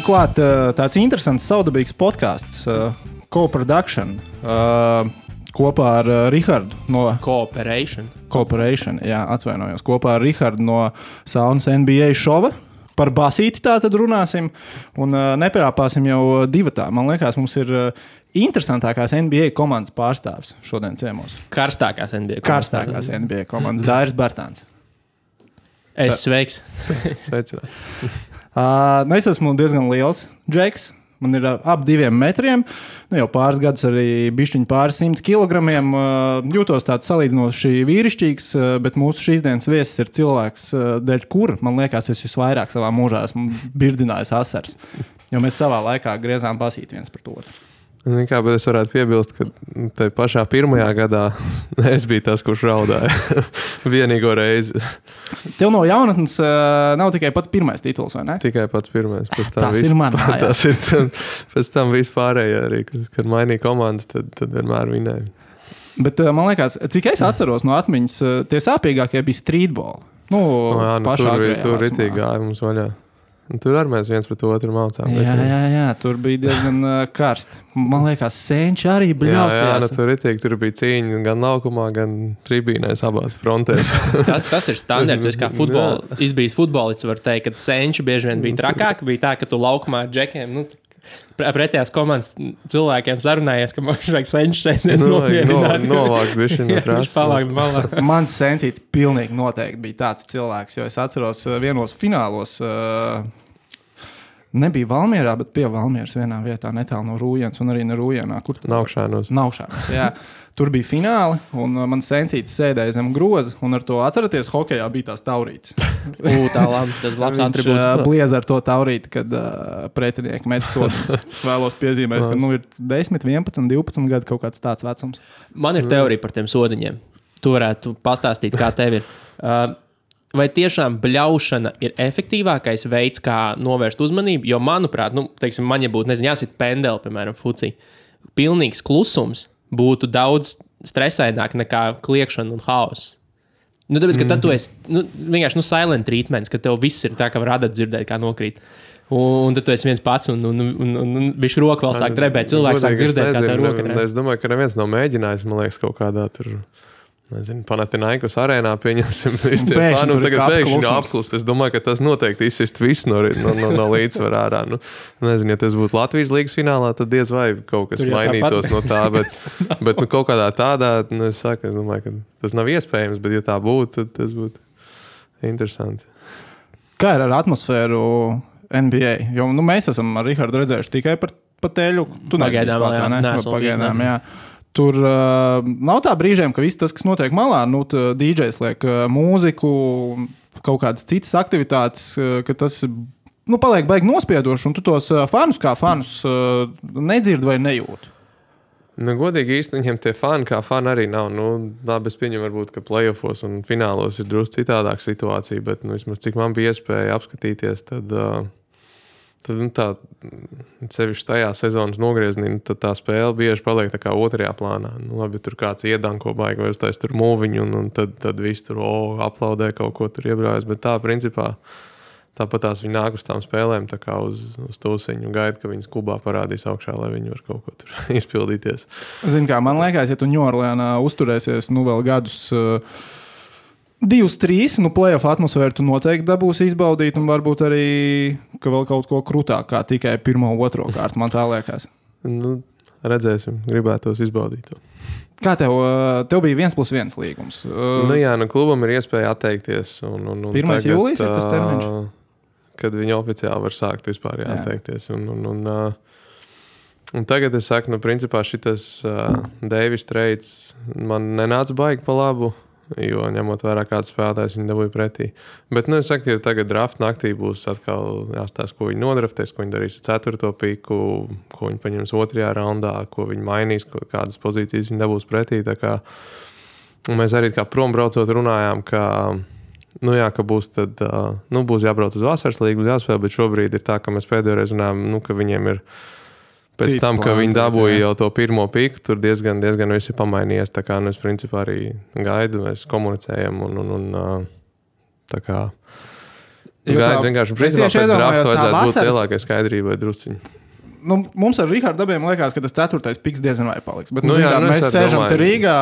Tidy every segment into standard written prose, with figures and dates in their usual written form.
klāt tāds interesants saudabīgs podcasts, Co-Production, kopā ar Rihardu no... Cooperation, jā, atvainojos. Kopā ar Rihardu no Saunas NBA šova. Par basīti tā tad runāsim un nepierāpāsim jau divatā. Man liekas, mums ir interesantākās NBA komandas pārstāvs šodien ciemos. Karstākās NBA komandas Dairis Bartāns. Sveiks. Sveicināt. Es esmu diezgan liels džeks. Man ir ap 2 metriem. Jau pāris gadus arī bišķiņi pāris 100 kilogramiem. Jūtos tāds salīdzinoši vīrišķīgs, bet mūsu šīs dienas viesis ir cilvēks, dēļ kur, man liekas, es visvairāk savā mūžā esmu birdinājis asars. Jo mēs savā laikā griezām basīt viens par otru. Kā, bet es varētu piebilst, ka te pašā pirmajā gadā es biju tas, kurš raudāja vienīgo reizi. Tev no jaunatnes nav tikai pats pirmais tituls, vai ne? Tikai pats pirmais. Tas ir man. Tas ir pēc tam vispārējā arī, kad mainīja komandas, tad vienmēr vinēja. Bet man liekas, cik es atceros no atmiņas, tie sāpīgākie bija streetball. Tur ritīgi gāja mums vaļā. Tur arī mēs viens pret otru mācām. Jā, tur bija diezgan karsti. Man liekas, senči arī bļaustījās. Tur bija cīņa gan laukumā, gan tribīnēs abās frontēs. tas ir standarts. Es kā izbijis futbolists var teikt, ka senči bieži vien bija trakāk. Bija tā, ka tu laukumā ar džekiem, pretējās komandas cilvēkiem sarunājies, ka man vajag senči šeit nopiedināt. Novākt bišķi no trases. Palākt malā. Mans sencīts pilnīgi noteikti bija tāds cilvēks, jo es atceros vienos finālos, nebija Valmierā, bet pie Valmieras vienā vietā netālu no Rūjienas un arī ne Rūjienā. Naukšānos, jā. Tur bija fināli, un mans sencītis sēdēja zem groza, un ar to atceraties, hokejā bija tās taurītes. Tā labi, tas labs atribūts. Viņš bliez ar to taurīti, kad pretinieki met sodiņus. Es vēlos piezīmēt, ka ir 10, 11, 12 gadi kaut kāds tāds vecums. Man ir teorija par tiem sodiņiem. Tu varētu pastāstīt, kā tev ir. Vai tiešām bļaušana ir efektīvākais veids, kā novērst uzmanību? Jo, manuprāt, teiksim, man, ja būtu, jāsit pendeli, piemēram, fucī, pilnīgs klusums būtu daudz stresaināk nekā kliekšana un haoss. Tāpēc, ka tad tu esi vienkārši silent treatments, ka tev viss ir tā, ka var dzirdēt, kā nokrīt. Un tad tu esi viens pats un bišķi roka vēl sāk drebēt. Cilvēks sāk dzirdēt, kā tā roka drebēt. Es domāju, ka neviens nav mēģinājis, man liekas, kaut kādā tur... Panathinaikos arēnā pieņemsim visi tie fani, un tagad pēkšņi apklust. Es domāju, ka tas noteikti izsist viss no līdzsvarā ārā. Ja tas būtu Latvijas līgas finālā, tad diez vai kaut kas mainītos no tā, bet kaut kādā tādā, es domāju, ka tas nav iespējams, bet ja tā būtu, tad tas būtu interesanti. Kā ir ar atmosfēru NBA? Jo mēs esam ar Rihardu redzējuši tikai par teļu. Pagaidām, jā. Tur nav tā brīžiem, ka viss tas, kas notiek malā, DJs liek mūziku, kaut kādas citas aktivitātes, ka tas paliek baigi nospiedoši, un tu tos fanus kā fanus nedzird vai nejūt. Godīgi īsti viņiem tie fani kā fani arī nav. Labi, es pieņemu varbūt, ka playoffos un finālos ir drusku citādāk situācija, bet vismaz cik man bija iespēja apskatīties, tad tā, sevišķi tajā sezonas nogriezienī, tad tā spēle bieži paliek tā kā otrajā plānā. Labi, tur kāds iedanko baigi vai uztais tur mūviņu, un tad viss tur aplaudē kaut ko tur iebrājas, bet tā, principā, tāpat tās viņi nāk uz tām spēlēm tā kā uz tūsiņu un gaida, ka viņas klubā parādīs augšā, lai viņi var kaut ko tur izpildīties. Zini kā, man liekas, ja tu Ņūorleānā uzturēsies vēl gadus 2-3, playoff atmosfēru tu noteikti dabūsi izbaudīt, un varbūt arī, ka vēl kaut ko krūtāk kā tikai 1. 2. kārtu, man tā liekas. Redzēsim, gribētos izbaudīt to. Kā tev bija 1+1 līgums? Klubam ir iespēja atteikties. Un 1. jūlijas ir tas termiņš? Kad viņi oficiāli var sākt vispār atteikties. Un tagad es saku, principā šitas Davis trades man nenāca baigi pa labu, jo ņemot vērā kāds spēlētājs viņi dabūja pretī. Bet, es saku, ja tagad draft naktī būs atkal jāstāsta, ko viņi nodraftēs, ko viņi darīs ar 4. piku, ko viņi paņems 2. raundā, ko viņi mainīs, kādas pozīcijas viņi dabūs pretī. Tā kā mēs arī kā prombraucot runājām, ka būs tad, būs jābrauc uz vasaras līgu, jāspēl, bet šobrīd ir tā, ka mēs pēdējoreiz runājām, ka viņiem ir pēc tam, ka viņi dabūja jau to 1. piku, tur diezgan viss ir pamainījies. Tā kā es principā arī gaidu, mēs komunicējam un tā kā Vienkārši, principā, pēc drafta vajadzētu būt lielākai skaidrībai drusciņi. Nu, mums ar Rihardu Dabiem liekas, ka tas 4. piks diezgan vai paliks. Bet, mēs sēžam te Rīgā,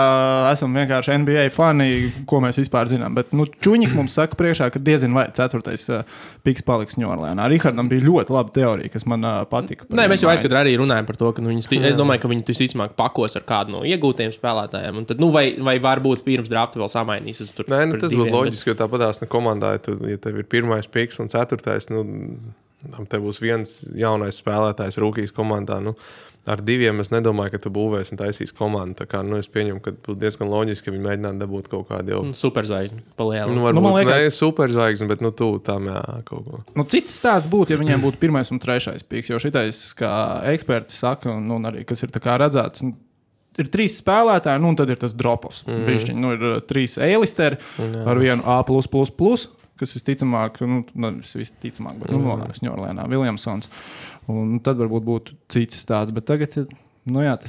esam vienkārši NBA fani, ko mēs vispār zinām. Bet Čuņiks mums saka priekšā, ka diezgan vai 4. piks paliks Ņūorleānā. Rihardam bija ļoti laba teorija, kas man patika. Nē, mēs jau aizkadrā arī runājam par to, ka es domāju, ka viņi visticamāk pakos ar kādu no iegūtiem spēlētājiem. Un tad, vai varbūt pirms drafta vēl samainīs. Nē, tas būtu loģiski, jo tāpatās komandā, ja tev ir 1. piks un 4. Te būs viens jaunais spēlētājs rūkīs komandā. Ar 2 es nedomāju, ka tu būvēsi un taisīs komandu. Tā kā, es pieņemu, ka būtu diezgan loģiski, ka viņi mēģinātu dabūt kaut kādu jau... Superzvaigzni palielinu. Varbūt liekas... ne superzvaigzni, bet tuvu tam kaut ko. Cits stāsts būtu, ja viņiem būtu 1. un 3. piks, jo šitais, kā eksperti saka, un arī, kas ir tā kā redzēts, ir 3 spēlētāji, un tad ir tas drop-offs. Bišķiņ, ir 3 A-listeri ar vienu A+++. Kas visticamāk, bet nonāks Ņūorleānā, Viljamsons. Un tad varbūt būtu cits stāsts, bet tagad, tas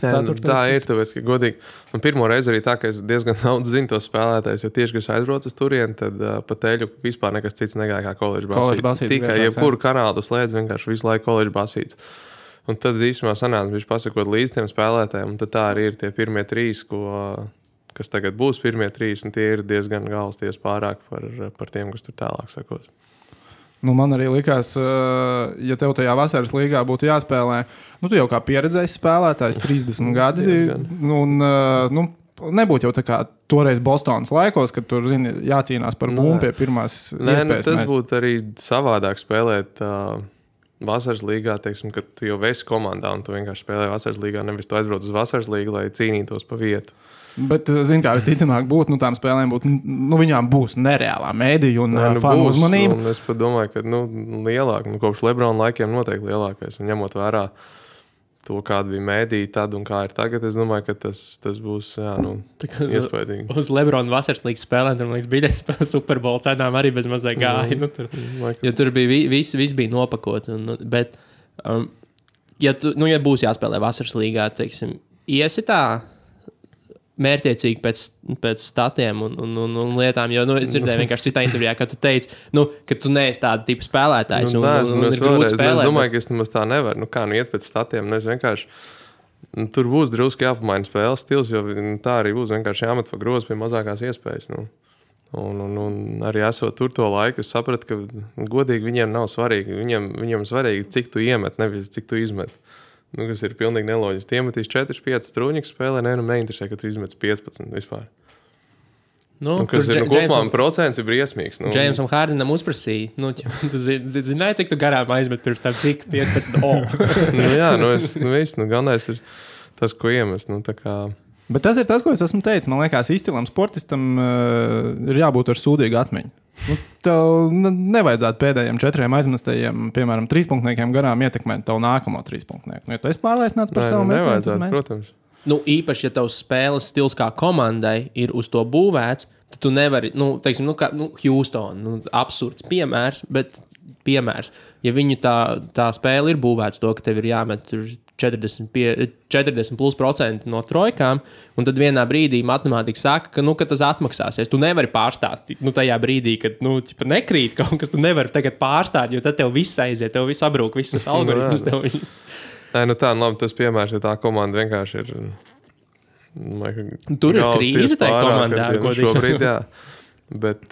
4. Tā ir, tāpēc, ka godīgi. Un pirmo reizi arī tā, ka es diezgan daudz zinu tos spēlētājus, jo tieši, kad es aizbraucu uz turieni, tad pa teļu vispār nekas cits negāja kā koledžu basīts. Tikai jebkuru kanālu slēdz vienkārši visu laiku koledžu basīts. Un tad īstenībā sanāca, viņš pasakot līdz tiem spēlētājiem, un tad tā arī ir tie pirmie 3, kas tagad būs pirmie 3, un tie ir diezgan galsties pārāk par tiem, kas tur tālāk sakos. Man arī likās, ja tev tajā vasaras līgā būtu jāspēlē, tu jau kā pieredzējis spēlētājs, 30 gadi, un nebūtu jau tā kā toreiz Bostonas laikos, kad tur, jācīnās par bumbu pie pirmās iespējas. Tas būtu arī savādāk spēlēt vasaras līgā, teiksim, kad tu jau esi komandā, un tu vienkārši spēlē vasaras līgā, nevis tu aizbrauc uz vasaras līgu, lai cīnītos pa vietu. Bet, kā visticamāk būtu, tām spēlēm būtu, viņām būs nereālā mēdīja un fanu uzmanība. Es pat domāju, ka, lielāk, kopš Lebrona laikiem noteikti lielākais. Un ņemot vērā to, kāda bija mēdīja tad un kā ir tagad, es domāju, ka tas būs, iespaidīgi. Uz Lebrona vasaras līgas spēlēm, tur, man liekas, biļetes par Super Bowl cenām arī bez mazai gāja. Jo tur bija, viss bija nopakots. Bet, ja būs jāspēlē vasaras līgā, teiksim, iesi tā mērķiecīgi pēc statiem un lietām, jo es dzirdēju vienkārši citā intervijā, ka tu teici, ka tu neesi tāda tipa spēlētājs un ir grūti spēlēt. Es domāju, ka es nemaz tā nevaru. Iet pēc statiem, es vienkārši tur būs drusku jāpamaina spēles stils, jo tā arī būs vienkārši jāmet pa grozu pie mazākās iespējas. Un arī esot tur to laiku, es sapratu, ka godīgi viņiem nav svarīgi. Viņiem svarīgi, cik tu iemet, nevis cik tu izmet. Kas ir pilnīgi neloģiski. Tie metīs 4-5 strūņikas spēlē, neinteresē, ka tu izmets 15 vispār. Kas ir kopumā procents ir briesmīgs. Džeimsam Hārdenam uzprasīja. Tu zināji, cik tu garām aizmet pirms tam, cik 15 galvenais ir tas, ko iemest. Bet tas ir tas, ko es esmu teicis. Man liekas, izcilam sportistam ir jābūt ar sūdīgu atmiņu. Tev nevajadzētu pēdējiem 4 aizmestajiem, piemēram, 3-punktniekiem garām ietekmēt tavu nākamo 3-punktnieku. Ja tu esi pārliecināts par savu metienu, nevajadzētu, protams. Īpaši, ja tavs spēles stils kā komandai ir uz to būvēts, tad tu nevari, teiksim, Houston, absurds piemērs, bet piemērs. Ja viņu tā spēle ir būvēts to, ka tev ir jāmet 40% no trojkām, un tad vienā brīdī matemātika saka, ka tas atmaksāsies. Tu nevari pārstāt tajā brīdī, kad nekrīt kaut kas, tu nevari tagad pārstāt, jo tad tev viss aiziet, tev viss abrūk, viss tas algoritms tev. Labi, tas piemērs, ja tā komanda vienkārši ir... Tur ir krīze tajā komandā. Šobrīd, jā. Bet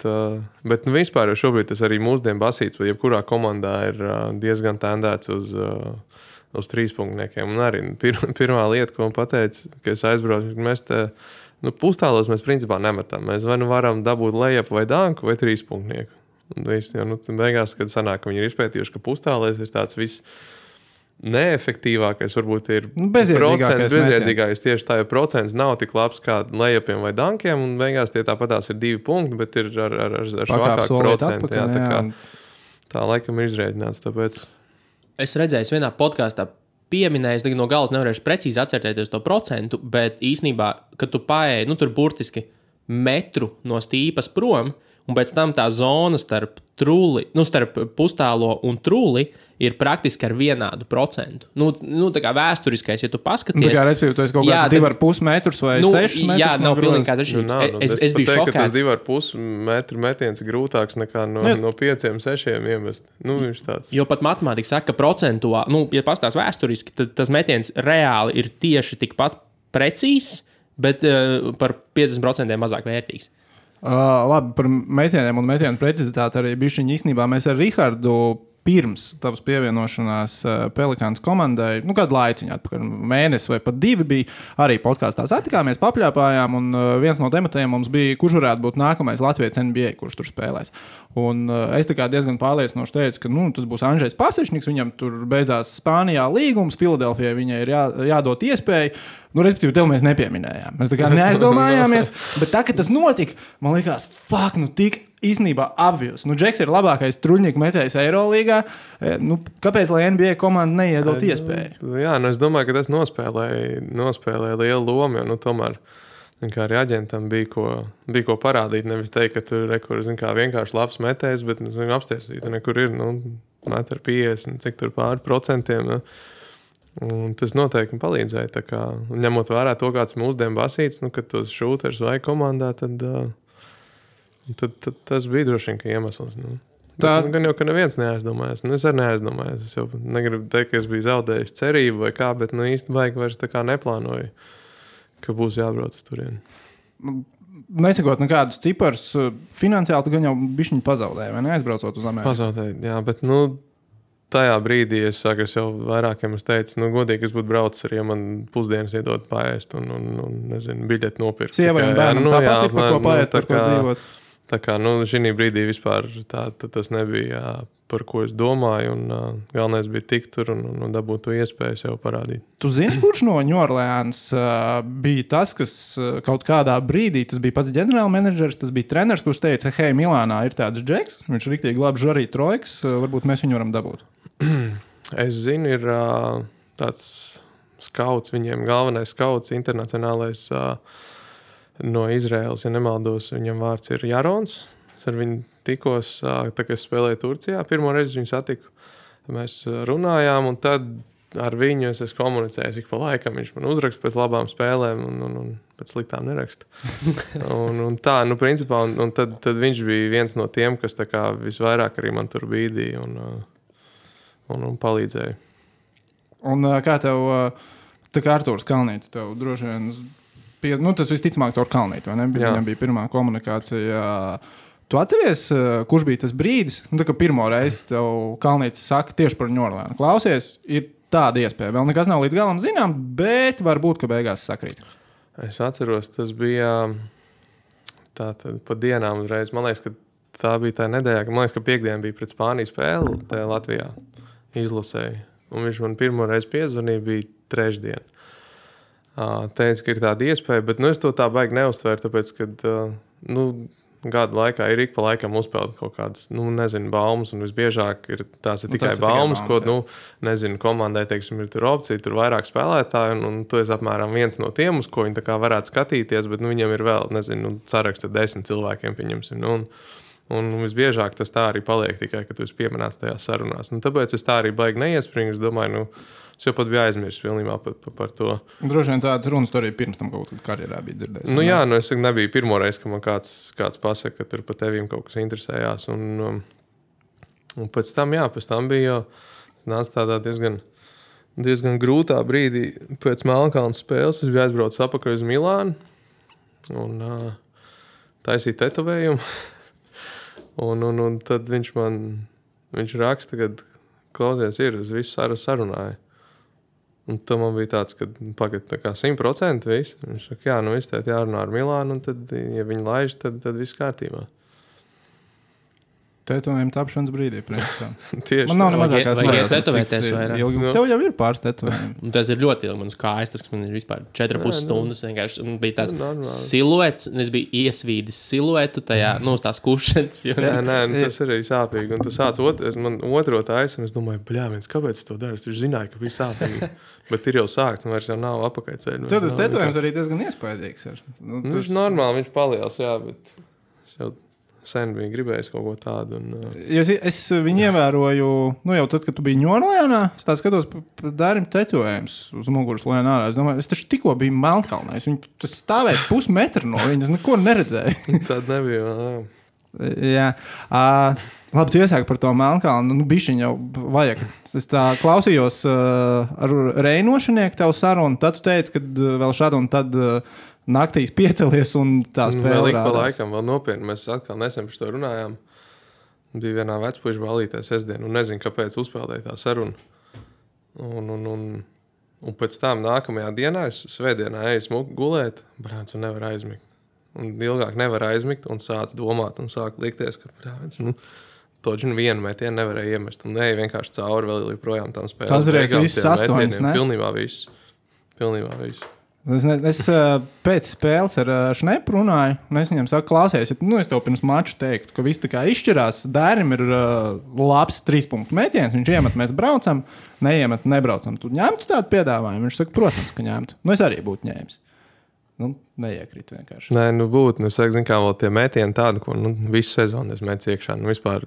vispār jau šobrīd tas arī mūsdienu basīts, bet jebkurā komandā ir diezgan tendēts uz 3-punktniekiem. Un arī pirmā lieta, ko man pateica, ka es aizbraucu, mēs te pustālos mēs principā nemetam. Mēs vai varam dabūt lejupu vai danku vai 3-punktnieku. Un viss, beigās, kad sanāk, ka viņi ir izpētījuši, ka pustālēs ir tāds viss neefektīvākais, varbūt ir bezjēdzīgākais tieši tā, jo procents nav tik labs kā lejupiem vai dankiem, un beigās tie tāpatās ir 2 punkti, bet ir ar švakāku procentu. Tā laikam ir izrēķināts, tāpēc... Es redzēju, vienā podkāstā pieminējis, no galas nevarēšu precīzi atcerēties to procentu, bet īsnībā, kad tu paēji, tur burtiski metru no stīpas prom, un pēc tam tā zona starp pustālo un trūli ir praktiski ar vienādu procentu. Tā kā vēsturiskais, ja tu paskaties... Tā kā, respektīvi, tu esi kaut kāds 2,5 metrus vai 6 metrus. Jā, nav pilnīgi kāds atšķirības. Es biju šokēts. Tas 2,5 metru metiens ir grūtāks nekā no 5-6 iemest. Viņš tāds. Jo pat matemātika saka, ka procentuāli, ja pastāst vēsturiski, tad tas metiens reāli ir tieši tikpat precīzs, bet par 50% mazāk vērtīgs. Labi, par metieniem un metienu precizitāti arī bišķiņi īstenībā mēs ar Rihardu pirms tavas pievienošanās Pelikāns komandai, kādu laiciņu atpakaļ, mēnesi vai pat 2 bija, arī podkāstā satikāmies, papļāpājām, un viens no tematiem mums bija, kurš varētu būt nākamais Latvijas NBA, kurš tur spēlēs. Un es tā kā diezgan pārliecinoši teicu, ka tas būs Andžejs Pasečniks, viņam tur beidzās Spānijā līgums, Filadelfijai viņai ir jādod iespēju, respektīvi, tev mēs nepieminējām. Mēs tā kā neaizdomājāmies, bet tā, kad tas notika, man likās, tik īstenībā obvious. Džeks ir labākais truļnieku metējs Eirolīgā. Kāpēc, lai NBA komanda neiedot iespēju? Jā, es domāju, ka tas nospēlēja lielu lomu, jo tomēr kā arī aģentam bija ko parādīt. Nevis teikt, ka tur vienkārši labs metējs, bet apstiesīt, nekur ir 1,50 cik tur pāri procentiem. Un tas noteikti palīdzēja. Tā kā, ņemot vērā to, kāds mūsdienu basīts, kad tos šūters vai komandā, tad tas bija droši vien, ka iemesls. Gan jau, ka neviens neaizdomājas. Es arī neaizdomājos. Es jau negribu teikt, ka es biju zaudējis cerību vai kā, bet īsti baigi vairs tā kā neplānoju, ka būs jābrauc uz turieni. Nesakot nekādus ciparus, finansiāli tu gan jau bišķiņu pazaudēji, vai neaizbraucot uz Ameriku? Pazaudēji, jā, bet tajā brīdī es jau vairākiem teicu, godīgi es būtu braucis arī, ja man pusdienas iedod paēst un nezinu, biļeti nopirkt. Sievai un bērnam tāpat ir par ko paēst, par ko dzīvot. Tā kā, šī brīdī vispār tas nebija, par ko es domāju, un galvenais bija tikt tur un dabūt to iespēju sev parādīt. Tu zini, kurš no New Orleans bija tas, kas kaut kādā brīdī, tas bija pats ģenerālmenedžers, tas bija treneris, kurš teica, hei, Milānā ir tāds Džeks, viņš riktīgi labi žarī trojkas, varbūt mēs viņu varam dabūt. Es zinu, ir tāds skauts, viņiem galvenais skauts, internacionālais no Izraēlas, ja nemaldos, viņam vārds ir Jarons. Es ar viņu tikos, tā kā es spēlēju Turcijā, pirmo reizi viņu satiku. Mēs runājām, un tad ar viņu es esmu komunicējis ik pa laikam. Viņš man uzraksta pēc labām spēlēm un pēc sliktām neraksta. un tā, principā, un tad viņš bija viens no tiem, kas tā kā visvairāk arī man tur bīdīja un palīdzēja. Un kā tev, tā kā Artūrs Kalnītis, tev droši vien... tas visticamāk caur Kalnīti, vai ne? Viņam bija pirmā komunikācija. Tu atceries, kurš bija tas brīdis? Tā kā pirmo reizi tev Kalnītis saka tieši par New Orleans. Klausies, ir tāda iespēja. Vēl nekas nav līdz galam zinām, bet varbūt, ka beigās sakrīt. Es atceros, tas bija tātad pa dienām uzreiz. Man liekas, ka tā bija tā nedēļā, man liekas, ka piekdiena bija pret Spāniju spēli tajā Latvijā izlasēja. Un viņš man pirmo reizi piezvanīja, bija trešdiena. Teica, ka ir tāda iespēja, bet es to tā baigi neuztvēru, tāpēc, ka gadu laikā ir ik pa laikam uzpeld kaut kādas, baumas, un visbiežāk tās ir tikai baumas, ko, nezinu, komandai, teiksim, ir tur opcija, tur vairāk spēlētāji, un tu esi apmēram viens no tiem, uz ko viņi tā kā varētu skatīties, bet, viņam ir vēl, nezinu, saraksts ar 10 cilvēkiem, pieņemsim, un visbiežāk tas tā arī paliek tikai, ka tu esi pieminēts tajās sarunās. Tāpēc es tā arī baigi neiespringu, es domāju, es jau pat biju aizmirsis pilnībā par to. Droši vien tādas runas tu arī pirms tam kaut kādā karjerā bija dzirdējis. Jā, es nebiju pirmo reizi, ka man kāds pasaka, ka tur pa tevīm kaut kas interesējās. Un pēc tam bija nāca tādā diezgan grūtā brīdī pēc Melnkalnes spēles. Es biju aizbraucis apakaļ uz Milānu un taisīju tetovējumu. un tad viņš raksta, ka klausies ir, es visu sarunāju. Un tad man bija tāds, ka pagad tā kā 100% viss. Viņš saka, viss tēt jārunā ar Milānu, un tad, ja viņi laiž, tad viss kārtībā. Tetovējuma tapšanas brīdī. Tieši man nav nemazākās vajag tetovēties vairāk. Tev jau ir pāris tetovējumi. Tas ir ļoti ilgi manas kājas, tas man ir vispār 4,5 stundas vienkārši. Un bija tāds siluets, un es biju iesvīdis siluetu tajā, tās kušanas. Tas arī sāpīgi. Un tu sāc man otro taisu, un es domāju, kāpēc es to daru? Es zināju, ka bija sāpīgi. Bet ir jau sākts, un vairs jau nav apakaļceļu. Tad tas tetovējums arī diezgan iespaidīgs. Viņš normāli, viņš paliels, jā, bet sen bija gribējis kaut ko tādu. Es viņu ievēroju, jau tad, kad tu biji Ņorlēnā, es tā skatos Dārim tetovējums uz muguras lēn ārā. Es domāju, es taču tikko biju Melnkalnē. Tas stāvēja pusmetru no viņas, neko neredzēju. Tad nebija, Jā. Labi, tu iesāki par to Melnkalnu. Bišķiņ jau vajag. Es tā klausījos ar Reinošanieku tev sarunu, tad tu teici, kad vēl šādu un tad naktīs piecelies un tā spēle vēl rādās. Pa laikam, vēl nopietni. Mēs atkal nesen par to runājām. Bija vienā vecpuiša balītē sestdien un nezinu, kāpēc uzspēlēja tā saruna. Un pēc tam nākamajā dienā, es svētdienā eju smuku gulēt, brāns, un nevar aizmigt. Un ilgāk nevar aizmigt un sāc domāt un sāk likties, ka toģi vienu metienu nevarēja iemest. Un eju vienkārši cauri vēl joprojām tam spēlēm. Tas reiz viss 8, ne? Pilnībā viss. Es pēc spēles ar Šnepu runāju, un es viņam saku, klausies, es tev pirms mača teiktu, ka viss tā kā izšķirās. Dērim ir labs 3-punktu metiens, viņš iemet, mēs braucam, neiemet, nebraucam. Tu ņemtu tādu piedāvājumu? Viņš saka, protams, ka ņemtu. Es arī būtu ņēmis. Neiekrīt vienkārši. Nē, būtu, zin kā vēl tie metieni tādi, ko visu sezonu es metu iekšā. Vispār...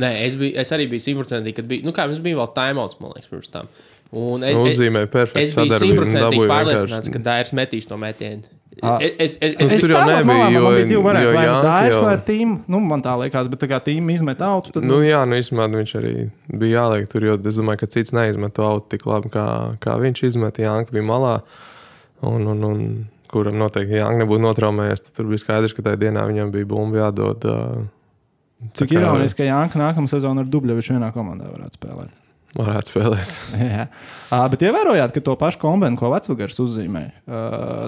Nē, es arī biju 100%, kad bija, kā mums bija vēl timeouts, man liekas, pirms tam. Un uzzīmēja perfekti sadarbību. Es biju 100% pārliecināts, ka Dairis metīs to metienu. Es tur jau nebija, jo... Man bija divi varianti, vai Dairis vai tīma. Man tā liekas, bet tā kā tīma izmet autu, tad... īstenībā viņš arī bija jāliek tur, jo es domāju, ka cits neizmet to autu tik labi, kā viņš izmet. Jānka bija malā. Un kuram noteikti Jānka nebūtu notraumējies, tad tur bija skaidrs, ka tajā dienā viņam bija bumba jādod. Cik ironiski, ka Jānka nākamā sezona ar Dubļeviču vienā komandā varētu spēlēt. Jā. Bet ievērojāt, ka to pašu kombinu, ko Vecvagars uzzīmēja,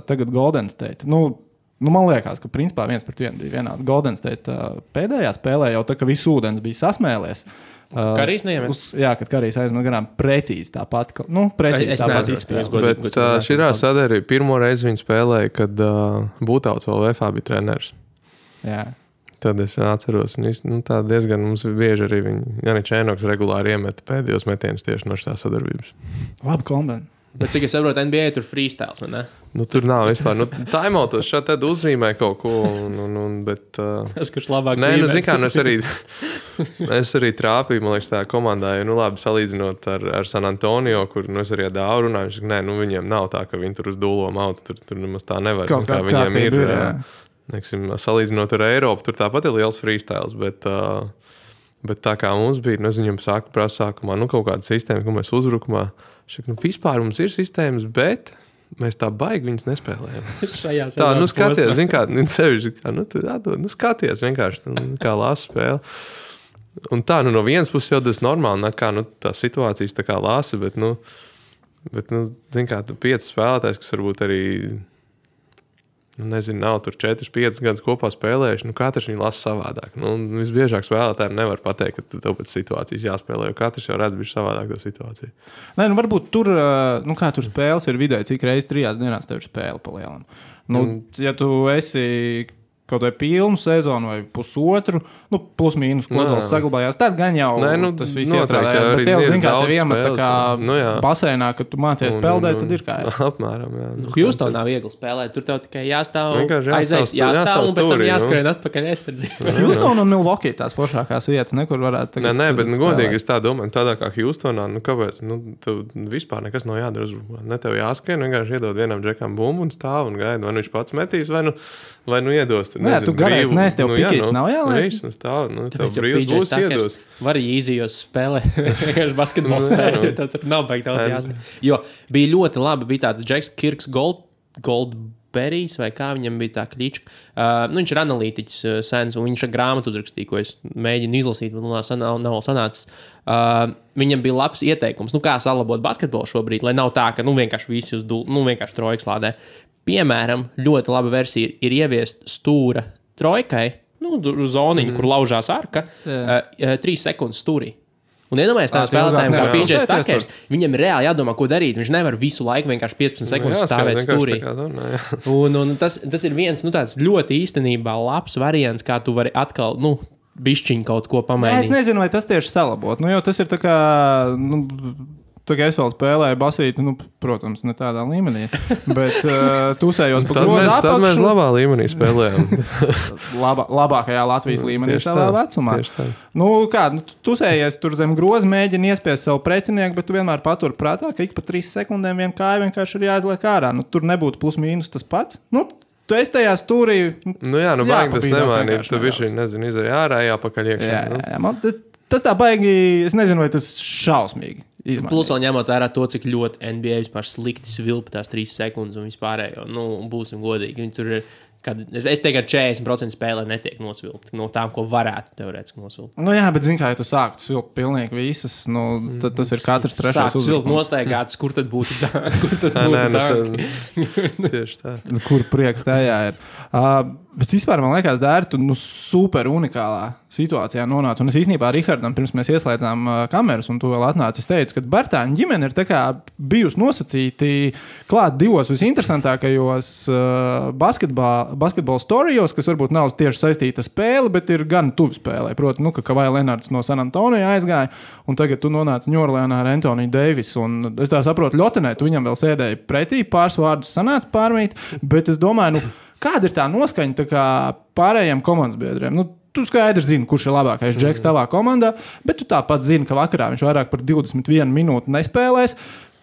tagad Golden State. Man liekas, ka principā 1-1 bija vienādi. Golden State pēdējā spēlē jau tā, ka viss ūdens bija sasmēlies. Karīs neiemet? Jā, kad Karīs aizmet garām precīzi tāpat. Precīzi tāpat izspēlē. Bet širā sadarīja pirmo reizi viņi spēlēja, kad Būtauts vēl VFA bija treneris. Jā. Tad es atceros, tā diezgan mums bieži arī Janis Čēnoks regulāri iemeta pēdējos metienus tieši no šitā sadarbības. Labi kombinē. Bet cik es saprotu, NBA tur freestyles, vai ne? Tur nav vispār. Timeoutos šādi tad uzzīmē kaut ko, bet... Tas, kurš labāk zīmē. Es arī trāpīju, man liekas, tā komandā, labi salīdzinot ar San Antonio, kur es arī ar Dāvu runāju, viņš saka, viņiem nav tā, ka viņi tur uz dūlo mauc, tur nemaz tā nevar. Kaut kā viņiem ir, neksim, salīdzinot ar Eiropu, tur tāpat ir liels freestyles, bet tā kā mums bija, es viņam prasa sākumā, kaut kāda sistēma, ko mēs uzbrukumā, vispār mums ir sistēmas, bet mēs tā baigi viņas nespēlējam. Tā, skaties, zin kā, skaties vienkārši, kā lāsa spēle. Un tā, no vienas puses jau tas normāli, kā, tā situācijas tā kā lāsa, bet zin kā, 5 spēlētājs, kas varbūt arī, nezinu, nav tur 4-5 gadus kopā spēlējuši, katrs viņu lasa savādāk. Visbiežāk spēlētājiem nevar pateikt, ka tev pēc situācijas jāspēlē, jo katrs jau redz bišķi savādāk to situāciju. Nē, varbūt tur, kā tur spēles ir vidēji, cik reizes 3 dienās tev ir spēle pa lielam. Ja tu esi kaut vai pilnu sezonu vai pusotru, plus mīnus kodols saglabājās, tad gan jau tas viss iestrādājās. Bet tev, zin kā, tev iemet tā kā basēnā, kad tu mācies peldēt, tad ir kā. Apmēram, jā. Houstonā viegli spēlēt, tur tev tikai jāstāv un pēc tam jāskrien atpakaļ aizsardzību. Houston un Milwaukee tās foršākās vietas, nekur varētu tagad. Nē, bet godīgi es tā domāju, tādā kā Houstonā, kāpēc, tev vispār nekas nav jādara uzbrukumā. Ne tev jāskrien, vienkārši iedod vienam džekam bumbu un stāv un gaida, vai viņš pats metīs, vai iedos. Nē, tu garais nes, tev pikīts nav jāliek. Tev brīvs būs iedos. Var arī īzijos spēlē, vienkārši basketbolu spēlē, tad tur nav baigi daudz jāstāv. Jo bija ļoti labi, bija tāds Džeks Kirks Goldberrijs, vai kā viņam bija tā klička. Viņš ir analītiķis sens, un viņš ar grāmatu uzrakstīja, ko es mēģinu izlasīt, bet nav sanācis. Viņam bija labs ieteikums, kā salabot basketbolu šobrīd, lai nav tā, ka vienkārši visi vienkārši trojkas lādē. Piemēram, ļoti laba versija ir ieviest stūra trojkai, zoniņu, kur laužās arka, 3 sekundes stūrī. Un iedomājies tādiem spēlētājiem, kā PJ Tuckers, viņam ir reāli jādomā, ko darīt. Viņš nevar visu laiku vienkārši 15 sekundes stāvēt stūrī. Un tas ir viens tāds ļoti īstenībā labs variants, kā tu vari atkal, bišķiņ kaut ko pamainīt. Es nezinu, vai tas tieši salabot. Jo tas ir tā kā... tā kā es vēl spēlēju basīti, nu, protams, ne tādā līmenī, bet tusējos pa grozu apakšu. Tad mēs labā līmenī spēlējām. Labākajā Latvijas līmenī savā vecumā. Nu, kā, tusējies tur zem groza, mēģini iespiest savu pretinieku, bet tu vienmēr patur prātā, ka ik pa 3 sekundēm viena kāja vienkārši ir jāizliek ārā. Nu, tur nebūtu plus mīnus tas pats. Nu, tu esi tajā stūrī. Nu jā, nu baigi tas nemainīt. Tu bišķi, nezinu, izēj ārā, jāpakaļ iekšā. Jā, man tas tā baigi, es nezinu, vai tas šausmīgi izmainīt. Plus vēl ņemot vērā to, cik ļoti NBA vispār slikti svilpa tās 3 sekundes un vispārējo. Nu, būsim godīgi. Viņi tur ir, es teiktu, ka 40% spēlē netiek nosvilpti no tām, ko varētu teorētiski nosvilpt. Nu jā, bet zini, kā ja tu sāktu svilpt pilnīgi visas, nu, tad tas ir katrs trešais uzvilkt. Sākt svilpt nostaigātus, kur tad būtu tanki? Tieši tā. Kur prieks tajā ir. Bet vispār man liekas, Dēri, tu super unikālā situācijā nonāc. Un es īstenībā Rihardam, pirms mēs ieslēdzām kameras un tu vēl atnāci, es teicu, ka Bartāņa ģimene ir tā kā bijusi nosacīti klāt 2 visinteresantākajos basketbola storijos, kas varbūt nav tieši saistīta spēle, bet ir gan tuvi spēlē. Proti, nu, ka Kawhi Leonards no San Antonio aizgāja, un tagad tu nonāci Ņūorleānā ar Anthony Davis. Un es tā saprotu, Ļotenē, tu viņam vēl sēdēji pretī, pāris vārdus sanāca pārmīt, bet es domāju, nu, kāda ir tā noskaņa tā kā pārējiem komandas biedriem? Nu, tu skaidrs zini, kurš ir labākais džeks tavā komandā, bet tu tāpat zini, ka vakarā viņš vairāk par 21 minūti nespēlēs.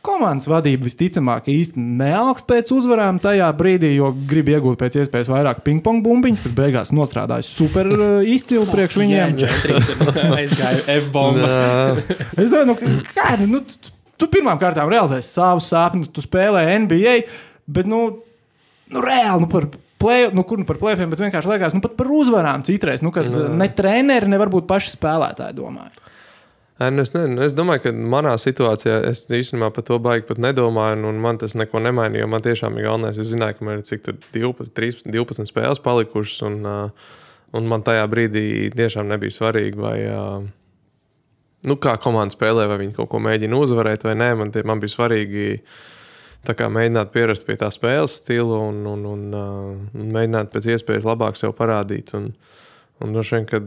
Komandas vadība visticamāk īsti neaugst pēc uzvarām tajā brīdī, jo grib iegūt pēc iespējas vairāk ping-pong bumbiņas, kas beigās nostrādājas super izcili priekš viņiem. Aizgāju F-bombas. Es domāju, nu, tu pirmām kārtām realizēsi savus sapņus, tu spēlē NBA, bet, nu reāli, par play-offiem, bet vienkārši liekas, pat par uzvarām citreiz, kad ne treneri, ne varbūt paši spēlētāji domāju. Es domāju, ka manā situācijā es īstenībā par to baigi pat nedomāju, un man tas neko nemainīja, jo man tiešām ir galvenais. Es zināju, ka man ir cik tur 12 spēles palikušas, un man tajā brīdī tiešām nebija svarīgi, vai, kā komanda spēlē, vai viņi kaut ko mēģina uzvarēt vai nē. Man bija svarīgi tā kā mēģināt pierast pie tā spēles stila un mēģināt pēc iespējas labāk sev parādīt. Un droši vien, kad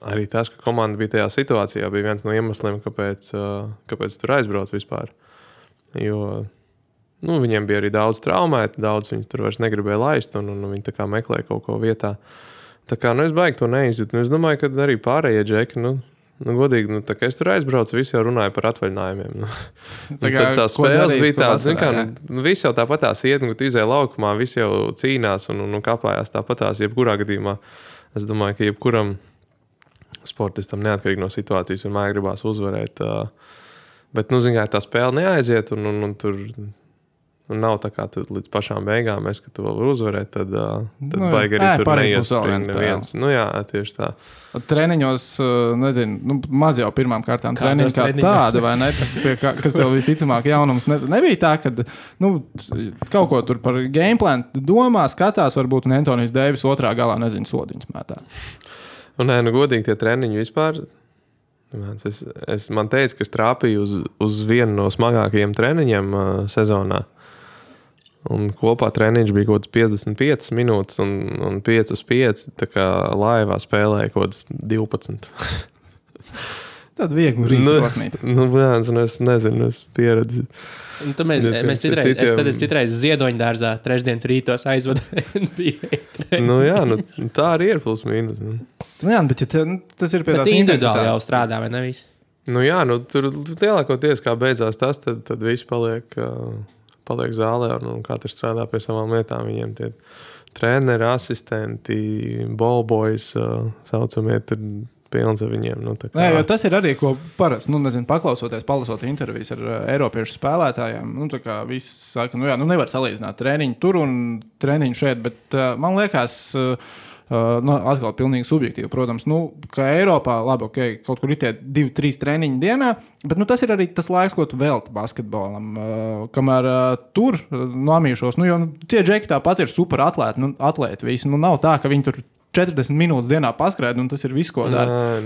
arī tas, ka komanda bija tajā situācijā, bija viens no iemesliem, kāpēc tur aizbrauc vispār. Jo viņiem bija arī daudz traumēti, daudz viņus tur vairs negribēja laist, un viņi tā kā meklēja kaut ko vietā. Tā kā es baigi to neizjūtu. Es domāju, ka arī pārējie džeki, godīgi, tā kā es tur aizbraucu, visi jau runāja par atvaļinājumiem. Tā spēles bija tāda, visi jau tāpatās iet, kad izēja laukumā, visi jau cīnās un kāpājās tāpatās, jebkurā gadījumā. Es domāju, ka jebkuram sportistam neatkarīgi no situācijas un māja gribās uzvarēt. Bet, tā spēle neaiziet un tur nav tā kā tu līdz pašām beigām, ka tu vēl vari uzvarēt, tad baigi arī tur neiespring neviens. Jā, tieši tā. Treniņos, maz jau pirmām kārtām treniņi kā tāda, vai ne? Kas tev visticamāk jaunums nebija tā, kad kaut ko tur par gameplan domā, skatās, varbūt un Anthonijs Deivis otrā galā, sodiņus mētā. Godīgi tie treniņi vispār. Man teica, ka es trāpīju uz vienu no smagākajiem treniņiem sezonā. Un kopā treniņš bija kaut kāds 55 minūtes un 5 uz 5, tā kā laivā spēlēja kaut kāds 12. Tad viegli rīt pasmīt. Es nezinu, es pieredzi. Mēs citreiz Ziedoņdārzā trešdienas rītos aizvadām NBA. Tā arī ir plus mīnus. Bet tas ir pie tās individuāli jau strādā, vai ne visi? Tur lielākoties, kā beidzās tas, tad visi paliek zālē un katrs strādā pie savām lietām. Viņiem tie treneri, asistenti, ballboys saucamie, tad pilns ar viņiem. Nē, jo tas ir arī, ko parasti, paklausoties, palasot intervijas ar eiropiešu spēlētājiem, visi saka, nevar salīdzināt treniņu tur un treniņu šeit, bet man liekas, atkal pilnīgi subjektīvi, protams, ka Eiropā, labi, kaut kur ir tie 2-3 treniņi dienā, bet tas ir arī tas laiks, ko tu velti basketbolam, kamēr tur nomīšos, jo tie džeki tāpat ir super atlēti visi, nav tā, ka viņi tur 40 minūtes dienā paskrēd, un tas ir viss, ko dara.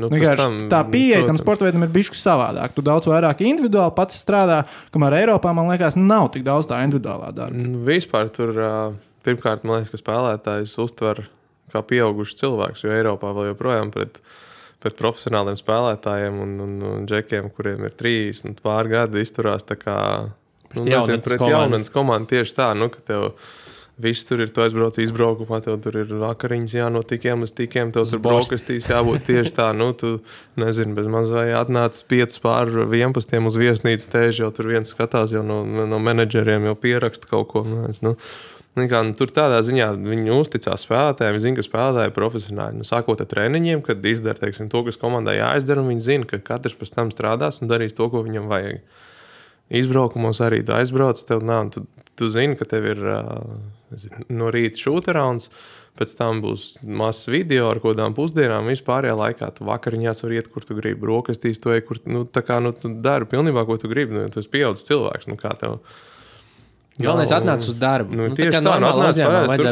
Tā pieeja tam sporta veidam ir bišķi savādāk. Tu daudz vairāk individuāli pats strādā, kamēr Eiropā, man liekas, nav tik daudz tā individuālā darba. Vispār tur, pirmkārt, man liekas, ka spēlētājs uztver kā pieaugušs cilvēks, jo Eiropā vēl joprojām pret pēc profesionāliem spēlētājiem un džekiem, kuriem ir 30 pār gadi, izturās tā kā pret jaunas komandu tieši tā, ka tev viss tur ir, tu aizbrauc izbraukumā, tev tur ir vakariņas jānotikiem uz tikiem, tev tur brokastīs jābūt tieši tā, tu, nezinu, bez maz vai atnāc 5 pār 11 uz viesnīcu tēži, jau tur viens skatās jau no menedžeriem, jau pieraksta kaut ko, tur tādā ziņā viņi uzticās spēlētājiem, zina, ka spēlētāji ir profesionāļi. Sākot ar treniņiem, kad izdara, teiksim, to, kas komandai jāizdara, un viņi zina, ka katrs pēc tam strādās un darīs to, ko viņam vajag. Izbraukumos arī tu aizbrauc, tev nav, tu zini, ka tev ir no rīta šūterauns, pēc tam būs mazs video ar kodām pusdienām, vispārējā laikā tu vakariņās var iet, kur tu gribi, brokastīs to, kur, tu dari pilnībā, ko tu gribi, tu esi pieaudzis cilvēks, kā tev. Galvenais atnāc uz darbu. Tieši tā, atnāc parāds,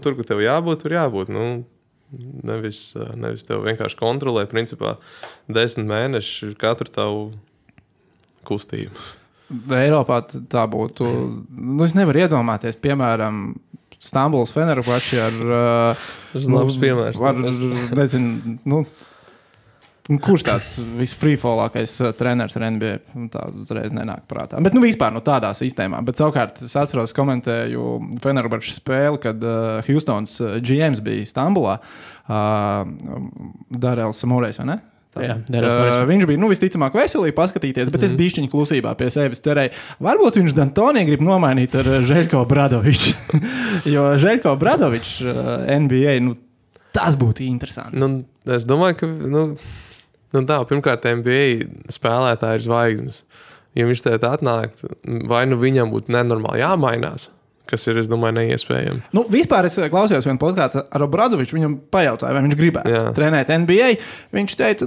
tur, kur tev jābūt, tur jābūt. Nevis tev vienkārši kontrolē, principā, 10 mēneši katru tavu kustību. Eiropā tā būtu, es nevaru iedomāties, piemēram, Stambuls Fenerbahče labs piemērs. Nezinu, kurš tāds visfrīfolākais treneris ar NBA? Tā uzreiz nenāk prātā. Bet vispār tādā sistēmā. Bet savukārt es atceros, komentēju Fenerbahčes spēli, kad Houstons GMs bija Stambulā. Darēls Samurejs, vai ne? Jā, viņš bija visticamāk veselīgi paskatīties, bet es bišķiņu klusībā pie sevis cerēju. Varbūt viņš D'Antoni grib nomainīt ar Žeļko Bradoviču. Jo Žeļko Bradovičs NBA, tas būtu interesanti. Es domāju, ka pirmkārt NBA spēlētāji ir zvaigznes. Ja viņš te atnāk, vai viņam būtu nenormāli jāmainās, kas ir, es domāju, neiespējami. Vispār es klausījos vienu podkāstu ar Obradoviču, viņam pajautāju, vai viņš gribētu trenēt NBA. Viņš teica,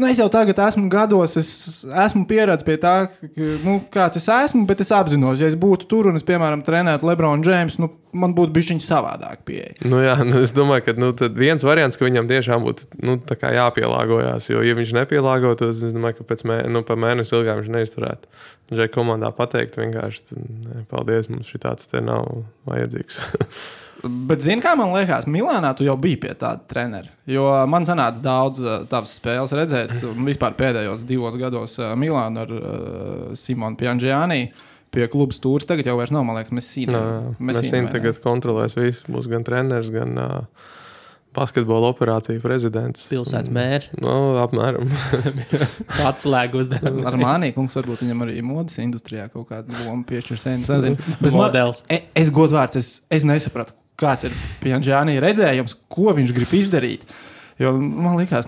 es jau tagad esmu gados, es esmu pieredzējis pie tā, kāds es esmu, bet es apzinos, ja es būtu tur un es, piemēram, trenētu LeBron James, man būtu bišķiņ savādāk pieeja. Es domāju, ka tad viens variants, ka viņam tiešām būtu tā kā jāpielāgojās, jo, ja viņš nepielāgotos, es domāju, ka pa mēnesi ilgāk viņš neizturētu. Džai komandā pateikt vienkārši, paldies, mums šitāds te nav vajadzīgs. Bet zini, kā man liekas, Milānā tu jau biji pie tāda trenera, jo man sanāca daudz tavas spēles redzēt, vispār pēdējos 2 gados Milānu ar Simonu Piangiani pie klubas tūrs, tagad jau vairs nav, man liekas, Messina tagad kontrolēs visu, būs gan treneris, gan basketbola operācija prezidents. Pilsētas mērs. Apmēram. Atslēgu uzdevumu. Ar Mānīkungs varbūt viņam arī modas industrijā kaut kādu lomu piešķirs, nezinu. Modelis. Es godvārds, es nesapratu, kāds ir Piangiani redzējums, ko viņš grib izdarīt. Jo man liekas,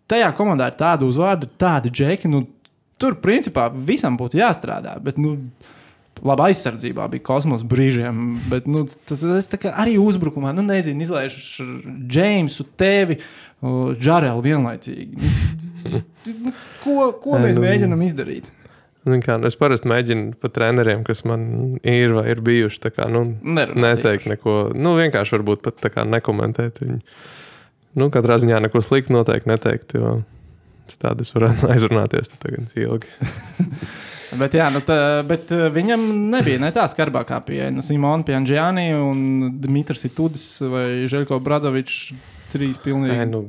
tajā komandā ir tādu uzvārdu, tādi džeki, tur principā visam būtu jāstrādā, bet labi, aizsardzībā bija kosmos brīžiem, bet tas tā kā arī uzbrukumā, nezinu, izlaižu Jamesu, tevi, Džarelu vienlaicīgi. Ko mēs mēģinam izdarīt? Es parasti mēģinu pa treneriem, kas man ir vai ir bijuši, tā kā, neteikt neko, vienkārši varbūt pat tā kā nekomentēt viņu. Katrā ziņā neko sliktu noteikti neteikt, jo citādi es varētu aizrunāties tagad ilgi. Bet viņam nebija tā skarbākā pieeja. Simona Piangiani un Dmitris Itudis vai Žeļko Bradovičs 3 pilnīgi.